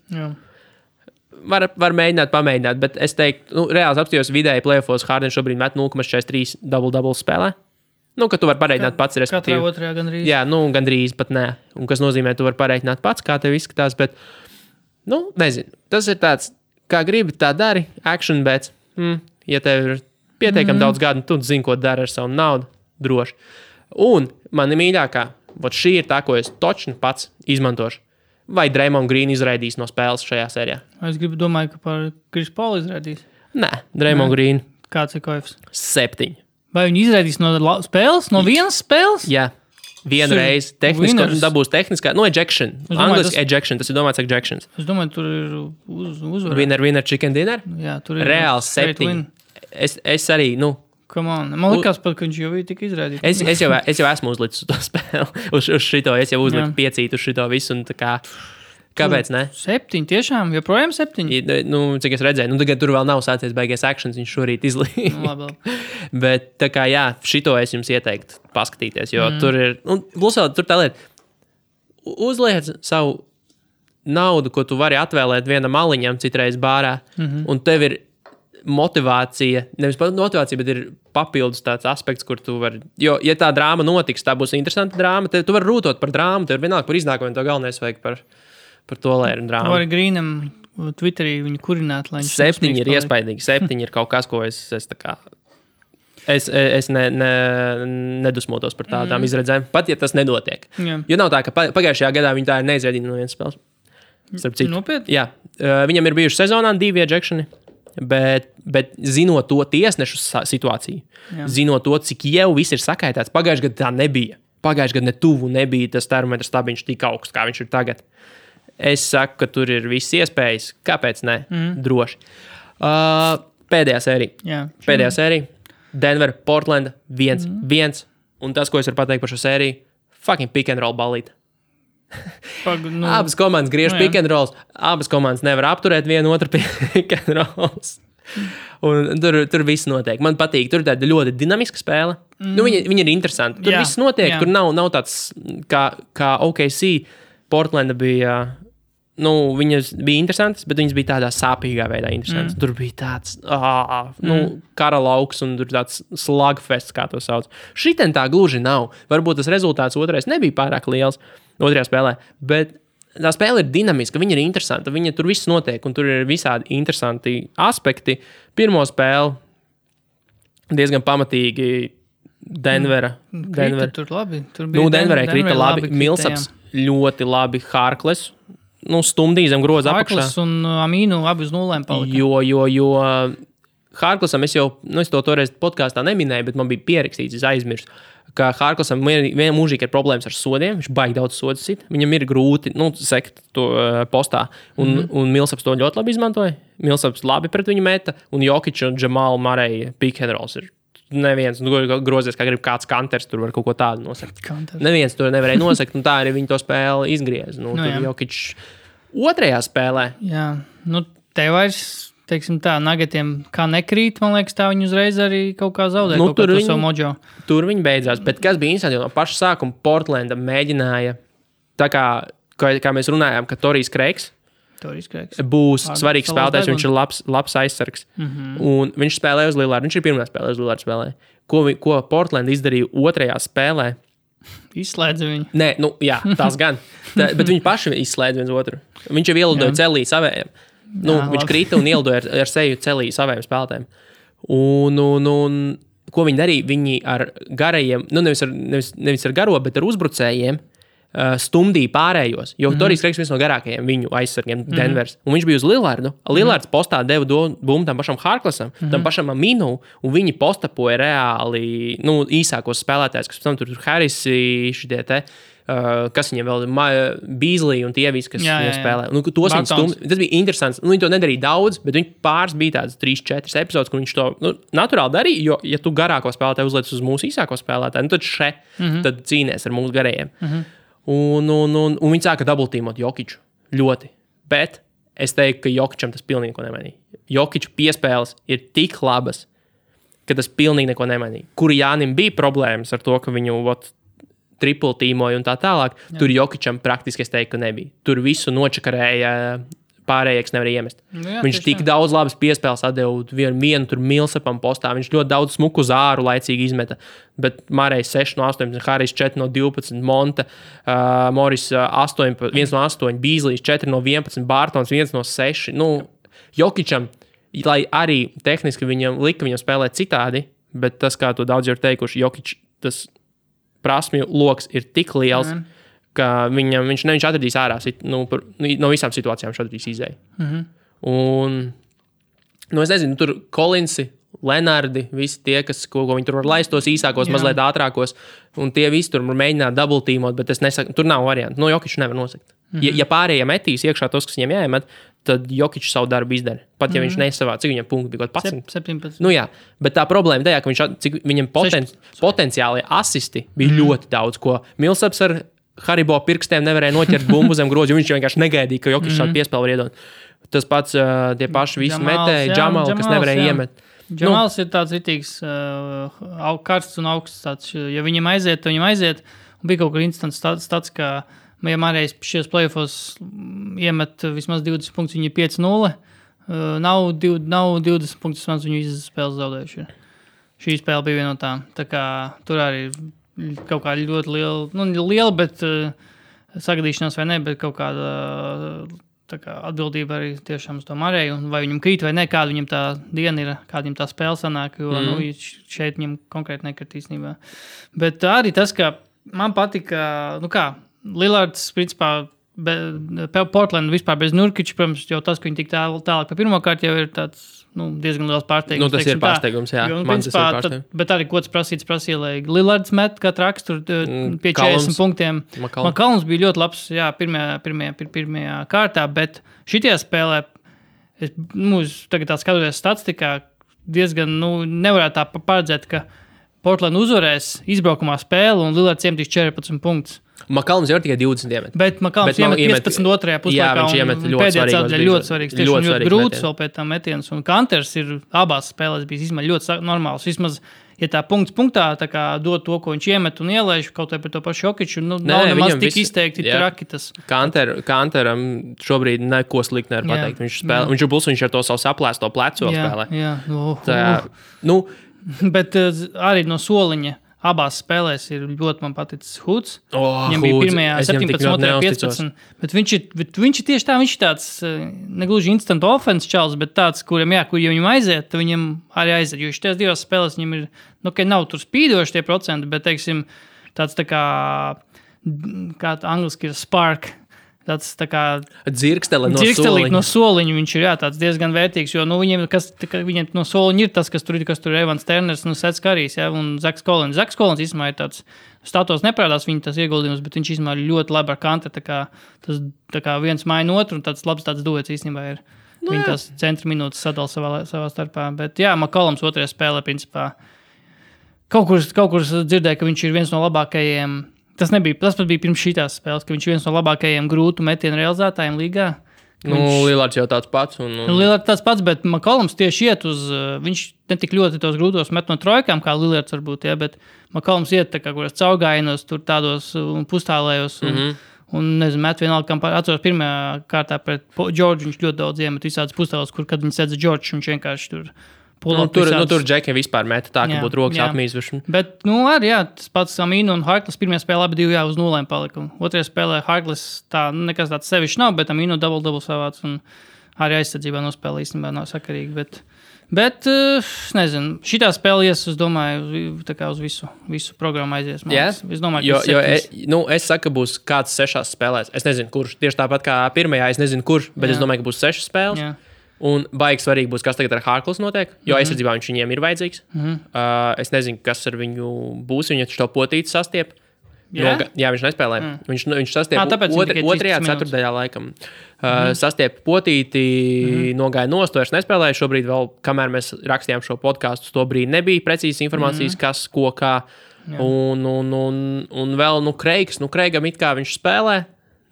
Speaker 1: var mēģināt, pamēģināt. Bet es teiktu, reāli apstājos vidēji playoffos, Harden šobrīd met 0,43 double-double spēlē. Ka tu vari pareiķināt pats, respektīvi.
Speaker 2: Katrā otrajā gandrīz.
Speaker 1: Jā, gandrīz pat nē. Un kas nozīmē, tu vari pareiķināt pats, kā tev izskatās. Bet, nezinu. Tas ir tāds, kā gribi, tā dari. Action bets. Ja tev ir pietiekami daudz gadu, tu zini, ko dari ar savu naudu. Droši. Un mani mīļākā. Šī ir tā, ko es točni pats izmantošu. Vai Draymond Green izraidīs no spēles šajā sērijā?
Speaker 2: Es domāju, ka par Chris Paul izraidīs.
Speaker 1: Nē, Draymond Green.
Speaker 2: Kāds ir koefs?
Speaker 1: 7.
Speaker 2: Vai viņi izraidīs no spēles? No vienas spēles?
Speaker 1: Jā. Vienu reizi dabūs tehniskā. Ejection. Angliski ejection. Tas ir domāts ejections.
Speaker 2: Es domāju, tur ir uzvara.
Speaker 1: Winner, chicken dinner?
Speaker 2: Jā, tur ir.
Speaker 1: Reāls 7. Es arī,
Speaker 2: Man liekas, ka viņš jau bija tik izrādīts.
Speaker 1: Es jau esmu uzlicis uz to spēli. Uz šito. Es jau uzliku 5 uz šito visu. Kāpēc ne?
Speaker 2: 7, tiešām? Joprojām 7?
Speaker 1: Cik es redzēju. Tagad tur vēl nav sācies beigies actions. Viņš šorīt izlīja. Bet tā kā jā, šito es jums ieteiktu paskatīties. Jo tur ir... Plus vēl tur tā lieta. Uzliec savu naudu, ko tu vari atvēlēt vienam maliņam citreiz bārā. Un tev ir motivācija, nevis motivācija, bet ir papildus tāds aspekts, kur tu vari, jo, ja tā drāma notiks, tā būs interesanta drāma, tu vari rūtot par drāmu, tev ir vienalga par iznākumiem, to galvenais vajag par to, lai ir drāma.
Speaker 2: Vai Grīnam Twitterī viņu kurināt, lai viņš
Speaker 1: 7 ir iespaidīgi, 7 ir kaut kas, ko es tā kā, es nedusmotos par tādām izredzēm, pat ja tas nedotiek. Jo nav tā, ka pagājušajā gadā viņi tā ir neizvedīti no vienas spēles.
Speaker 2: Nopietni?
Speaker 1: Jā, viņam ir bijuši sezonā 2 ejectioni. Bet zinot to tiesnešu situāciju, zinot to, cik jau viss ir sakaitāts, pagājušajā gadā tā nebija. Pagājušajā gadā netuvu nebija tas termometrs stabiņš tik augsts, kā viņš ir tagad. Es saku, ka tur ir viss iespējas. Kāpēc ne? Droši. Pēdējā sērija. Pēdējā sērija. Denver, Portland, 1-1. Un tas, ko es varu pateikt par šo sēriju, fucking pick and roll balīt.
Speaker 2: Nu,
Speaker 1: Abas komandas griež pick and rolls, abas komandas nevar apturēt vienu otru pick and rolls. Un tur viss notiek. Man patīk, tur ir tāda ļoti dinamiska spēle. Viņa ir interesanta. Tur viss notiek, tur nav tāds kā OKC. Portlanda bija, viņas bija interesantas, bet viņas bija tādā sāpīgā veidā interesantas. Tur bija tāds, kara lauks un tur tāds slugfests, kā to sauc. Šitien tā gluži nav. Varbūt tas rezultāts otrais nebija pārāk liels otrajā spēlē, bet tā spēle ir dinamiska, viņa ir interesanta, tur viss notiek, un tur ir visādi interesanti aspekti. Pirmo spēli diezgan pamatīgi Denvera.
Speaker 2: Tur labi. Tur bija
Speaker 1: Denverai krita labi. Millsaps ļoti labi. Harkless, stumdīja zem groza apakšā.
Speaker 2: Harkless un Amīnu abi uz nulēm palika.
Speaker 1: Jo Harklessam es to toreiz podkāstā neminēju, bet man bija pierakstīts, es aizmirstu, ka Harklessam vienā mūžīgi ir problēmas ar sodiem, viņš baigi daudz sodus sit, viņam ir grūti sekt to postā, un Millsaps to ļoti labi izmantoja, Millsaps labi pret viņu meta, un Jokic un Jamal Murray pick and rolls ir neviens, grozies, kā grib kāds kanters, tur var kaut ko tādu nosakt. Neviens to nevarēja nosakt, un tā arī viņi to spēli izgriez. Tur Jokic otrajā spēlē.
Speaker 2: Jā, te vairs... Teiksim tā, Nuggetiem kā nekrīt, man liekas, tā viņi uzreiz arī kaut kā zaudē kaut kā to savu mojo.
Speaker 1: Tur viņi beidzās, bet kas bija interesanti, jo no paša sākuma Portlanda mēģināja, tā kā mēs runājām, ka Torijs Kreigs būs svarīgs spēlētājs, viņš ir labs aizsargs. Un viņš spēlēja uz Lillardu, viņš ir pirmā spēlē uz Lillardu spēlē. Ko Portlanda izdarīja otrajā spēlē?
Speaker 2: Izslēdza viņu.
Speaker 1: Nē, jā, tās gan. Bet viņi paši izslēdza viens otru. Viņš jau ielidoja celī savējiem. Viņš krita un ielidoja ar seju celī saviem spēlētājiem. Un ko viņi darīja? Viņi ar garajiem, nevis ar garo, bet ar uzbrucējiem stumdīja pārējos. Jo Torijs Kreigs viens no garākajiem viņu aizsargiem Denvers. Un viņš bija uz Lillardu. Lillards postā deva bumbu tam pašam Harklessam, tam pašam Aminu, un viņi postapoja reāli īsākos spēlētājus, kas pēc tam tur Harrisi, šitie te, kas viņiem vēl ir Beasley un tie visi, kas viņiem spēlē. Tas bija interesants. Viņi to nedarīja daudz, bet viņi pāris bija tāds 3-4 epizodes, kur viņš to naturāli darīja, jo, ja tu garāko spēlētāju uzliec uz mūsu īsāko spēlētāju, tad tad cīnies ar mūsu garējiem. Un viņi sāka double-teamot Jokiču. Ļoti. Bet es teiktu, ka Jokičam tas pilnīgi neko nemainīja. Jokiču piespēles ir tik labas, ka tas pilnīgi neko nemainīja. Kur Jānim bija problēmas ar to, ka viņu triple tīmoja un tā tālāk, tur Jokičam praktiski es teiktu, ka nebija. Tur visu nočakarēja, pārējais nevarēja iemest. Viņš tik daudz labas piespēles atdeva vienu tur Millsapam postā, viņš ļoti daudz smuku zāru laicīgi izmeta, bet Mārējs 6 no 18, Harijs 4 no 12, Monta, Morris 1 no 8, Beasley's 4 no 11, Bartons 1 no 6. Jokičam, lai arī tehniski viņam spēlēt citādi, bet tas, kā to daudz ir teikuši, Jokič, tas prasmju loks ir tik liels, ka viņš atradīs ārā no visām situācijām viņš atradīs izēju. Un, es nezinu, tur Collinsi, Lenardi, visi tie, ko viņi tur var laist tos īsākos, mazliet ātrākos, un tie visi tur mēģināt double-teamot, bet es nesaku, tur nav variantu. Jokiču nevar nosakt. Ja pārējie metīs iekšā tos, kas viņiem jāiemet, tad Jokičs savu darbu izdara. Pat ja viņš nesavā, cik viņam punkti bija kaut
Speaker 2: 17.
Speaker 1: Jā, bet tā problēma tajā, ka viņam potenciāli asisti bija ļoti daudz, ko Millsaps ar Haribo pirkstiem nevarēja noķert bumbu zem grozi, jo viņš vienkārši negaidīja, ka Jokičs šādu piespēli var iedot. Tas pats tie paši visi metēji, Jamal, kas nevarēja iemet.
Speaker 2: Jamals ir tāds ritīgs karsts un augsts tāds. Ja viņam aiziet, tad viņam aiziet. Un bija kaut kur instants tāds, ka ja Mārējs šajos playoffos iemet vismaz 20 punktus, viņi ir 5-0. Nav 20 punktus, vismaz viņu izspēles zaudējuši. Šī spēle bija viena no tām. Tā kā tur arī kaut kā ļoti liela, bet sagadīšanās vai ne, bet kaut kāda tā kā atbildība arī tiešām uz to Mārēju, un vai viņam krīt vai ne, kāda viņam tā diena ir, kāda viņam tā spēle sanāk, jo šeit viņam konkrēti nekrit īstenībā. Bet arī tas, ka man patika, Lillards, principā, Portland vispār bez Nurkiča, protams, jau tas, ka viņi tik tālāk pa pirmo kārtu jau ir tāds, diezgan liels pārsteigums.
Speaker 1: Tas ir pārsteigums, jā. Man tas ir pārsteigums.
Speaker 2: Bet arī, ko tas prasīja, lai Lillards met kā traks tur pie 40 punktiem. McCollums bija ļoti labs, jā, pirmajā kārtā, bet šitajā spēlē, tagad tā skatoties statistikā, diezgan, nevarētu tā paredzēt, ka Portland uzvarēs izbraukumā spēli un Lillards iemetīs 14 punktus.
Speaker 1: Makalms jau ir tikai 20 iemet.
Speaker 2: Bet Makalms iemet 15 otrajā puslaikā.
Speaker 1: Jā, viņš iemet
Speaker 2: ļoti svarīgs. Tieši ļoti grūts vēl pēc tam metiens. Un Kanters ir abās spēlēs bijis ļoti normāls. Vismaz, ja tā punktā tā kā dod to, ko viņš iemet un ielaiž kaut vai par to pašu Jokiču, nav nemaz tik izteikti traki tas.
Speaker 1: Kanteram šobrīd neko slikti nevar pateikt. Viņš ar to savu saplēsto plecu spēlē.
Speaker 2: Bet arī no soliņa abās spēlēs ir ļoti man paticis Hoods. Viņam bija pirmajā 17, otrajā 15. Bet viņš ir tieši tā, viņš ir tāds negluži instant offense čals, bet tāds, kur viņam aiziet, viņam arī aiziet. Jo šitās divās spēlēs viņam ir, nav tur spīdoši tie procenti, bet, teiksim, tāds tā kā angliski ir spark. Tāds tā kā
Speaker 1: dzirksteli
Speaker 2: no soliņa viņš ir tāds diezgan vērtīgs, jo viņiem no soliņa ir tas, kas tur ir Evans Turners, Sets Karijs, un Zaks Collins. Zaks Collins īstenībā ir tāds statos neparādās viņa tas ieguldījums, bet viņš īstenībā ir ļoti labi ar Kanteru, tā kā viens maina otru, un tāds labs tāds duets īstenībā ir. Viņi tās centra minūtes sadala savā starpā, bet Makalams otrajā spēlē principā kaut kur dzirdēja, ka viņš ir viens no labākajiem. Tas pat bija pirms šīs spēles, ka viņš ir viens no labākajiem grūtu metienu realizētājiem līgā.
Speaker 1: Lillards jau tāds pats.
Speaker 2: Lillards tāds pats, bet Makalams tieši iet uz... Viņš netik ļoti tos grūtos met no trojkām, kā Lillards varbūt, bet Makalams iet tā kā kuras caurgājienos, tur tādos un pustālējos. Un nezinu, met vienalga, kam atceros pirmajā kārtā pret Džordžu, viņš ļoti daudz iemet visādas pustālos, kad viņš sedz Džordžu, viņš vienkārši tur...
Speaker 1: Tur Džekiem vispār meta tā, ka būtu rokas apmīzuši.
Speaker 2: Bet, arī tas pats Aminu un Harkless pirmajā spēlē abi divi uz 0 palika. Otrajā spēlē Harkless tā nekas tāds sevišķi nav, bet Aminu double savāds un arī aizsardzībā nospēlē īstenībā nav sakarīgi. Bet nezinu, šitā spēle es domāju, tā kā uz visu programmu aizies. Es domāju,
Speaker 1: ka es saku, ka būs kāds 6 spēlēs. Es nezinu, kurš. Tieši tāpat kā pirmajā, es nezinu, kurš, bet es domāju, ka būs 6 spēles. Jā. Un baigi svarīgi būs, kas tagad ar Harkless notiek, jo aizsardzībā viņš viņiem ir vajadzīgs. Es nezinu, kas ar viņu būs, viņa to potīti sastiep. Viņš nespēlē. Viņš sastiep otrajā ceturtajā laikam. Sastiep potīti, nogāja nost, vairs nespēlēja. Šobrīd vēl, kamēr mēs rakstījām šo podcastu, to brīdi nebija precīzas informācijas, kas, ko, kā. Un vēl, Kreigam it kā viņš spēlē.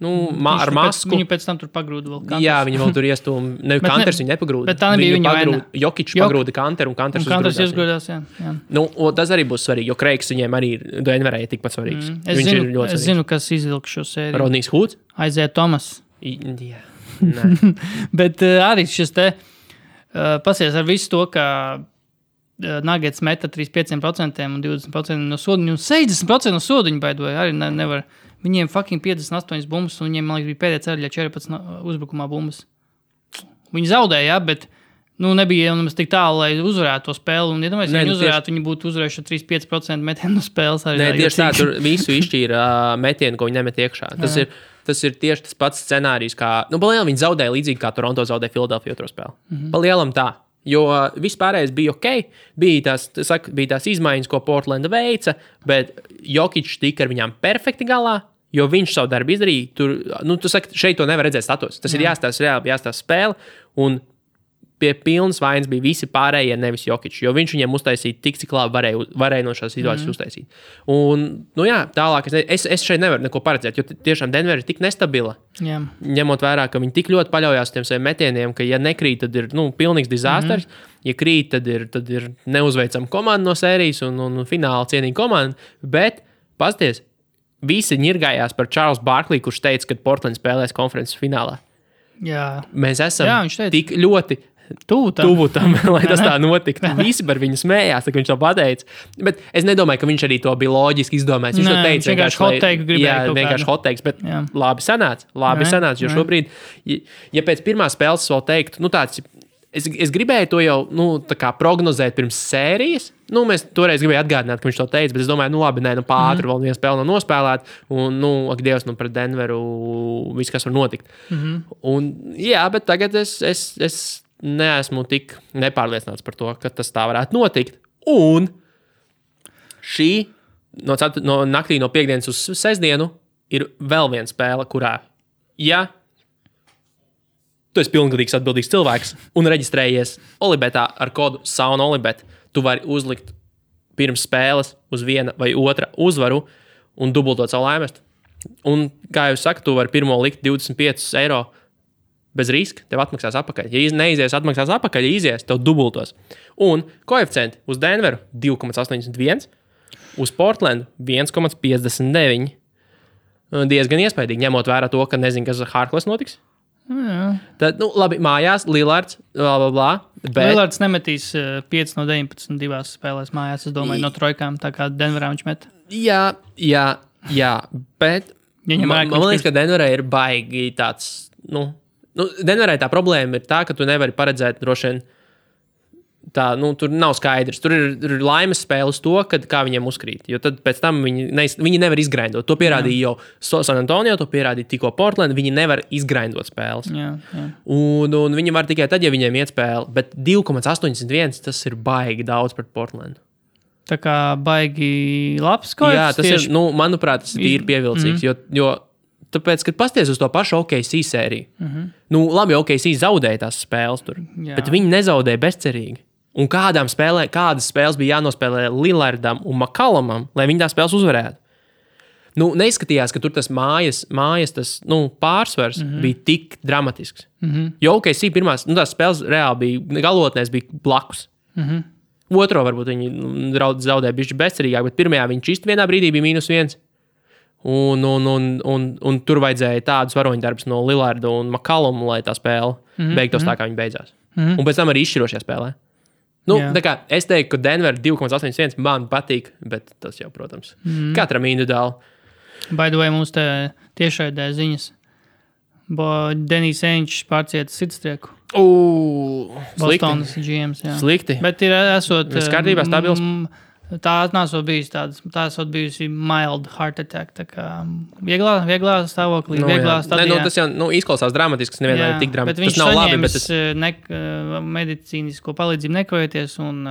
Speaker 1: Ar masku.
Speaker 2: Viņu pēc tam tur pagrūda vēl Kanters.
Speaker 1: Jā, viņi vēl tur iestūm. Kanters viņu nepagrūda.
Speaker 2: Bet tā nebija viņa vaina.
Speaker 1: Jokičs pagrūda Kanteru un Kanters
Speaker 2: uzgrūdās. Jā.
Speaker 1: Tas arī būs svarīgi, jo Kreigs viņiem arī Denverē ir tikpat svarīgs.
Speaker 2: Es zinu, kas izvilk šo sēriju.
Speaker 1: Rodnijs Hoods?
Speaker 2: Isaiah Thomas.
Speaker 1: Jā.
Speaker 2: Bet arī šis te pasies ar visu to, ka Nuggets meta 35% un 20% no sodiņu un 60% no sodiņu baidoja. Arī nevar... Viņiem fucking 58 bumbas, un viņiem, man liekas, bija pēdējā ceļā 14 uzbrukumā bumbas. Viņi zaudēja, bet nebija nemaz tik tālu, lai uzvarētu to spēli. Un, ja domāju, viņi uzvarētu, viņi būtu uzvarējuši 35% metienu no spēles.
Speaker 1: Tieši tā, tur visu izšķīra metienu, ko viņi nemet iekšā. Tas ir tieši tas pats scenārijs, kā... Palielam viņi zaudēja līdzīgi, kā Toronto zaudēja Philadelphia otro spēli. Palielam tā. Jo vispārējais bija ok, bija tās izmaiņas, ko Portlanda veica, bet Jokičs tika ar viņām perfekti galā, jo viņš savu darbu izdarīja. Tu saki, šeit to nevar redzēt status. Tas ir jāstāsta spēle, un pie pilnas vainas bija visi pārējie, nevis Jokičs, jo viņš viņiem uztaisīja tik, cik labi varēja no šās situācijas uztaisīt. Un, tālāk es šeit nevaru neko paredzēt, jo tiešām Denver ir tik nestabila, ņemot vērā, ka viņi tik ļoti paļaujās tiem saviem metieniem, ka ja nekrīt, tad ir pilnīgs dizasters, ja krīt, tad ir neuzveicama komanda no sērijas un fināla cienīga komanda, bet, pasties, visi ņirgājās par Charles Barkley, kurš teica, ka Portland spēlēs konferences finālā.
Speaker 2: Jā.
Speaker 1: Mēs esam tik ļoti tuvu tam, lai tas tā notiktu. Visi par viņu smējās, kad viņš to pateica. Bet es nedomāju, ka viņš arī to bija loģiski izdomājis. Viņš to teica
Speaker 2: vienkārši hot take gribēja.
Speaker 1: Jā, vienkārši hot takes, bet labi sanāca, jo šobrīd, ja pēc pirmās spēles vēl teiktu, tāds, es gribēju to jau, tā kā prognozēt pirms sērijas. Mēs toreiz gribēju atgādināt, ka viņš to teica, bet es domāju, pātri vēl viena spēle nav nospēlēta, un, ak Dievs, pret Denveru viss, kas var notikt. Un, jā, bet tagad es neesmu tik nepārliecināts par to, ka tas tā varētu notikt. Un šī no naktī no piekdienas uz sestdienu ir vēl viena spēle, kurā, ja tu esi pilngadīgs atbildīgs cilvēks un reģistrējies Olibetā ar kodu SAUNOLIBET, tu vari uzlikt pirms spēles uz viena vai otra uzvaru un dubultot savu laimēstu. Un, kā jau saka, tu vari pirmo likt 25 eiro bez riska, tev atmaksās atpakaļ. Ja neizies, atmaksās atpakaļ, ja izies, tev dubultos. Un koeficienti uz Denveru 2,81, uz Portlandu 1,59. Diezgan iespaidīgi, ņemot vērā to, ka nezinu, kas ar Harkless notiks.
Speaker 2: Jā.
Speaker 1: Tad, labi, mājās, Lillards, bla, bet...
Speaker 2: Lillards nemetīs 5 no 19 divās spēlēs mājās, es domāju, no trojkām, tā kā Denverā viņš met.
Speaker 1: Jā, bet man liekas, ka Denverā ir baigi tāds, Denverā tā problēma ir tā, ka tu nevari paredzēt droši vien tā, tur nav skaidrs. Tur ir laimes spēles to, kā viņiem uzkrīt, jo tad pēc tam viņi nevar izgraindot. To pierādīja jau San Antonio, to pierādīja tikko Portland, viņi nevar izgraindot spēles.
Speaker 2: Jā.
Speaker 1: Un viņi var tikai tad, ja viņiem iet spēle, bet 2,81 tas ir baigi daudz pret Portlandu.
Speaker 2: Tā kā baigi labs koeficients.
Speaker 1: Jā, tas ir, manuprāt, tas ir pievilcīgs, jo tāpēc, kad pasties uz to pašu OKC sēriju, labi, OKC zaudēja tās spēles tur, bet viņi nezaudēja bezcerīgi. Un kādas spēles bija jānospēlē Lillardam un McCollumam, lai viņi tās spēles uzvarētu. Neizskatījās, ka tur tas mājas tas, pārsvars bija tik dramatisks. Jo OKC pirmās, tās spēles reāli bija, galotnēs bija blakus. Otro varbūt viņi zaudēja bišķi bezcerīgāk, bet pirmajā viņš īsti vienā brīdī bija -1. Un tur vajadzēja tādus varoņdarbus no Lillarda un McColluma, lai tā spēle beigtos tā, kā viņi beidzās. Un pēc tam arī izšķirošajā spēlē. Tā kā es teiktu, ka Denver 2,81 man patīk, bet tas jau, protams, katram individuāli.
Speaker 2: By the way, mums te tiešraidē ziņas. Denijs Enčs pārcieta sirdstrieku. Bostonas GMs, jā.
Speaker 1: Slikti.
Speaker 2: Bet ir esot...
Speaker 1: Viss kārtībā, stabils.
Speaker 2: Tā nesot bijusi tādas. Tā esot bijusi mild heart attack. Tā kā vieglā stāvoklī, vieglā stadijā.
Speaker 1: Tas jau izklausās dramatiski, nevienmēr ir tik dramatiski.
Speaker 2: Bet viņš saņēmis medicīnisko palīdzību nekavēties un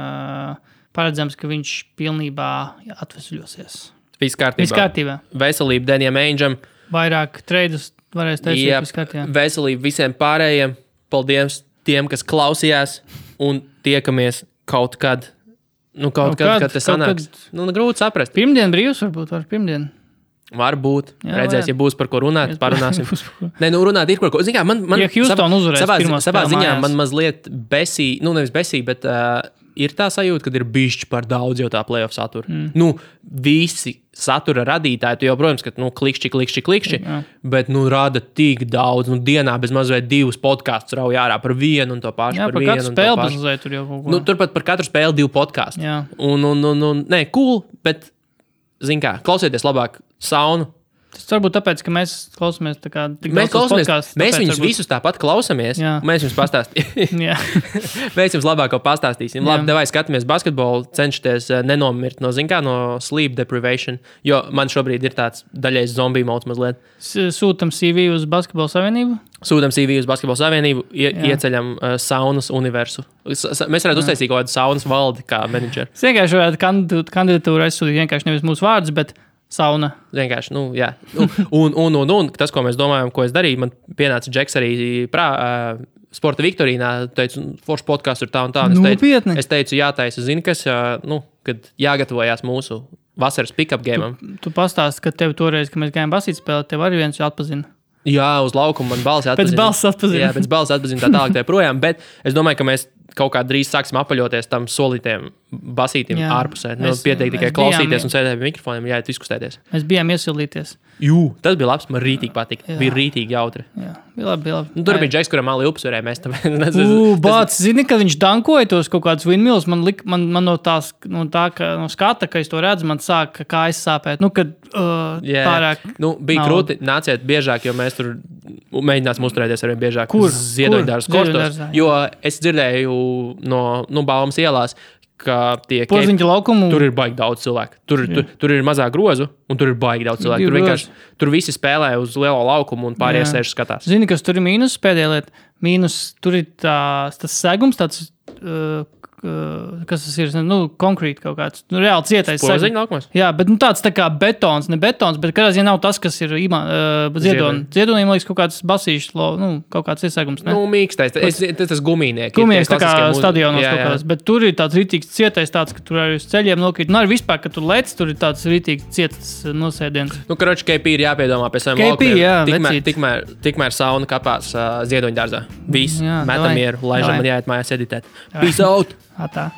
Speaker 2: paredzams, ka viņš pilnībā atvesļosies.
Speaker 1: Viss kārtībā. Veselība Denijam Aingeam.
Speaker 2: Vairāk treidus varēs taisīt viss kārtībā.
Speaker 1: Veselība visiem pārējiem. Paldies tiem, kas klausījās un tiekamies kaut kad. Kad tas sanāks. Grūti saprast.
Speaker 2: Pirmdien brīvs varbūt var pirmdien.
Speaker 1: Varbūt. Redzēs, ja būs par ko runāt, parunāsim. Runāt ir par ko. Zin kā,
Speaker 2: ja Houston uzvarēs
Speaker 1: savā ziņā man mazliet nevis besī, bet ir tā sajūta, ka ir bišķi par daudz jau tā playoff satura. Visi satura radītāji, tu jau, protams, ka klikšķi, bet rada tik daudz. Dienā bez mazliet 2 podkastus rauj ārā par vienu un to pašu.
Speaker 2: Jā, par katru spēli bazuzēt tur jau kaut ko.
Speaker 1: Turpat par katru spēli 2 podkastu. Nē, cool, bet, zin kā, klausieties labāk saunu.
Speaker 2: Tas varbūt tāpēc, ka mēs klausāmies tā kā tik daudz podcasts.
Speaker 1: Mēs viņus visus tāpat klausāmies. Mēs jums pastāstīsim. Mēs jums labāko pastāstīsim. Labi, devai skatāmies basketbolu, cenšaties nenomirt no sleep deprivation, jo man šobrīd ir tāds daļais zombiju mods mazliet.
Speaker 2: Sūtam CV uz Basketbola Savienību?
Speaker 1: Sūtam CV uz Basketbola Savienību, ieceļam saunas universu. Mēs varētu uztaisīt kaut kādu saunas valdi kā menedžeri.
Speaker 2: Es vienkārši varētu kandidatūru aizsūtīt vienkārši nevis mūsu vārdus, bet sauna.
Speaker 1: Vienkārši, jā. Un tas, ko mēs domājam, ko es darīju, man pienāca Džeks arī sporta viktorīnā, teicu, foršs podcasts ir tā un tā. Es teicu, jātaisa, zini, kas, kad jāgatavojās mūsu vasaras pick-up gameam.
Speaker 2: Tu pastāsti, ka tev toreiz, kad mēs gājām basīt spēlēt, tev arī viens atpazina.
Speaker 1: Jā, uz laukuma man balsi atpazina.
Speaker 2: Pēc balsi atpazina.
Speaker 1: Jā, pēc balsi atpazina tā tālāk tā projām, bet es domāju, ka mēs kaut kā drīz sāksim apaļoties tam solītiem basītim ārpusē. Pietiek tikai klausīties un sēdēt pie mikrofoniem, jāiet izkustēties.
Speaker 2: Mēs bijām iesildīties.
Speaker 1: Tas bija labs, man rītīgi patika. Bija rītīgi jautri.
Speaker 2: Jā, bija labi.
Speaker 1: Tur bija Džeks, kuram māli upsurē, mēs tāpēc...
Speaker 2: Bāc, zini, kad viņš dankoja tos kaut kādus windmills, man no skata, ka es to redzu, man sāk kājas sāpēt. Kad pārāk...
Speaker 1: Bija krūti, nāciet biežāk, jo mēs tur mēģināsim uzturēties arvien biežāk. Ziedoņdāras kostos. Jo es dzirdēju no Baumas ielās, ka tie
Speaker 2: Porziņķa laukumu.
Speaker 1: Tur ir baigi daudz cilvēku. Tur ir mazāk grozu, un tur ir baigi daudz cilvēku. Tur visi spēlē uz lielo laukumu, un pārējie sēž skatās.
Speaker 2: Zini, kas tur ir mīnus pēdējā lieta? Tur ir tas segums, tāds kas tas ir, konkrēti kaut kāds, reāli cietais.
Speaker 1: Spoziņa laukumos?
Speaker 2: Jā, bet tāds tā kā betons, ne betons, bet kādā ziņā nav tas, kas ir ziedoniem. Ziedoniem liekas kaut kāds basīšs, kaut kāds iesākums, ne?
Speaker 1: Mīkstais, tas gumīnieki.
Speaker 2: Gumīnieks tā kā stadionos kaut kāds, bet tur ir tāds ritīgs cietais tāds, ka tur arī uz ceļiem nokrīt. Arī vispār, ka tur lec, tur ir tāds ritīgi cietas nosēdiens.
Speaker 1: Karoči, KP ir jāpiedomā pie saviem laukumiem.
Speaker 2: Jā,
Speaker 1: tikmēr sauna kapās Ziedoņdārzā. Viss, metam mieru, laižam man jāiet mājās editēt. Peace out!
Speaker 2: Tā.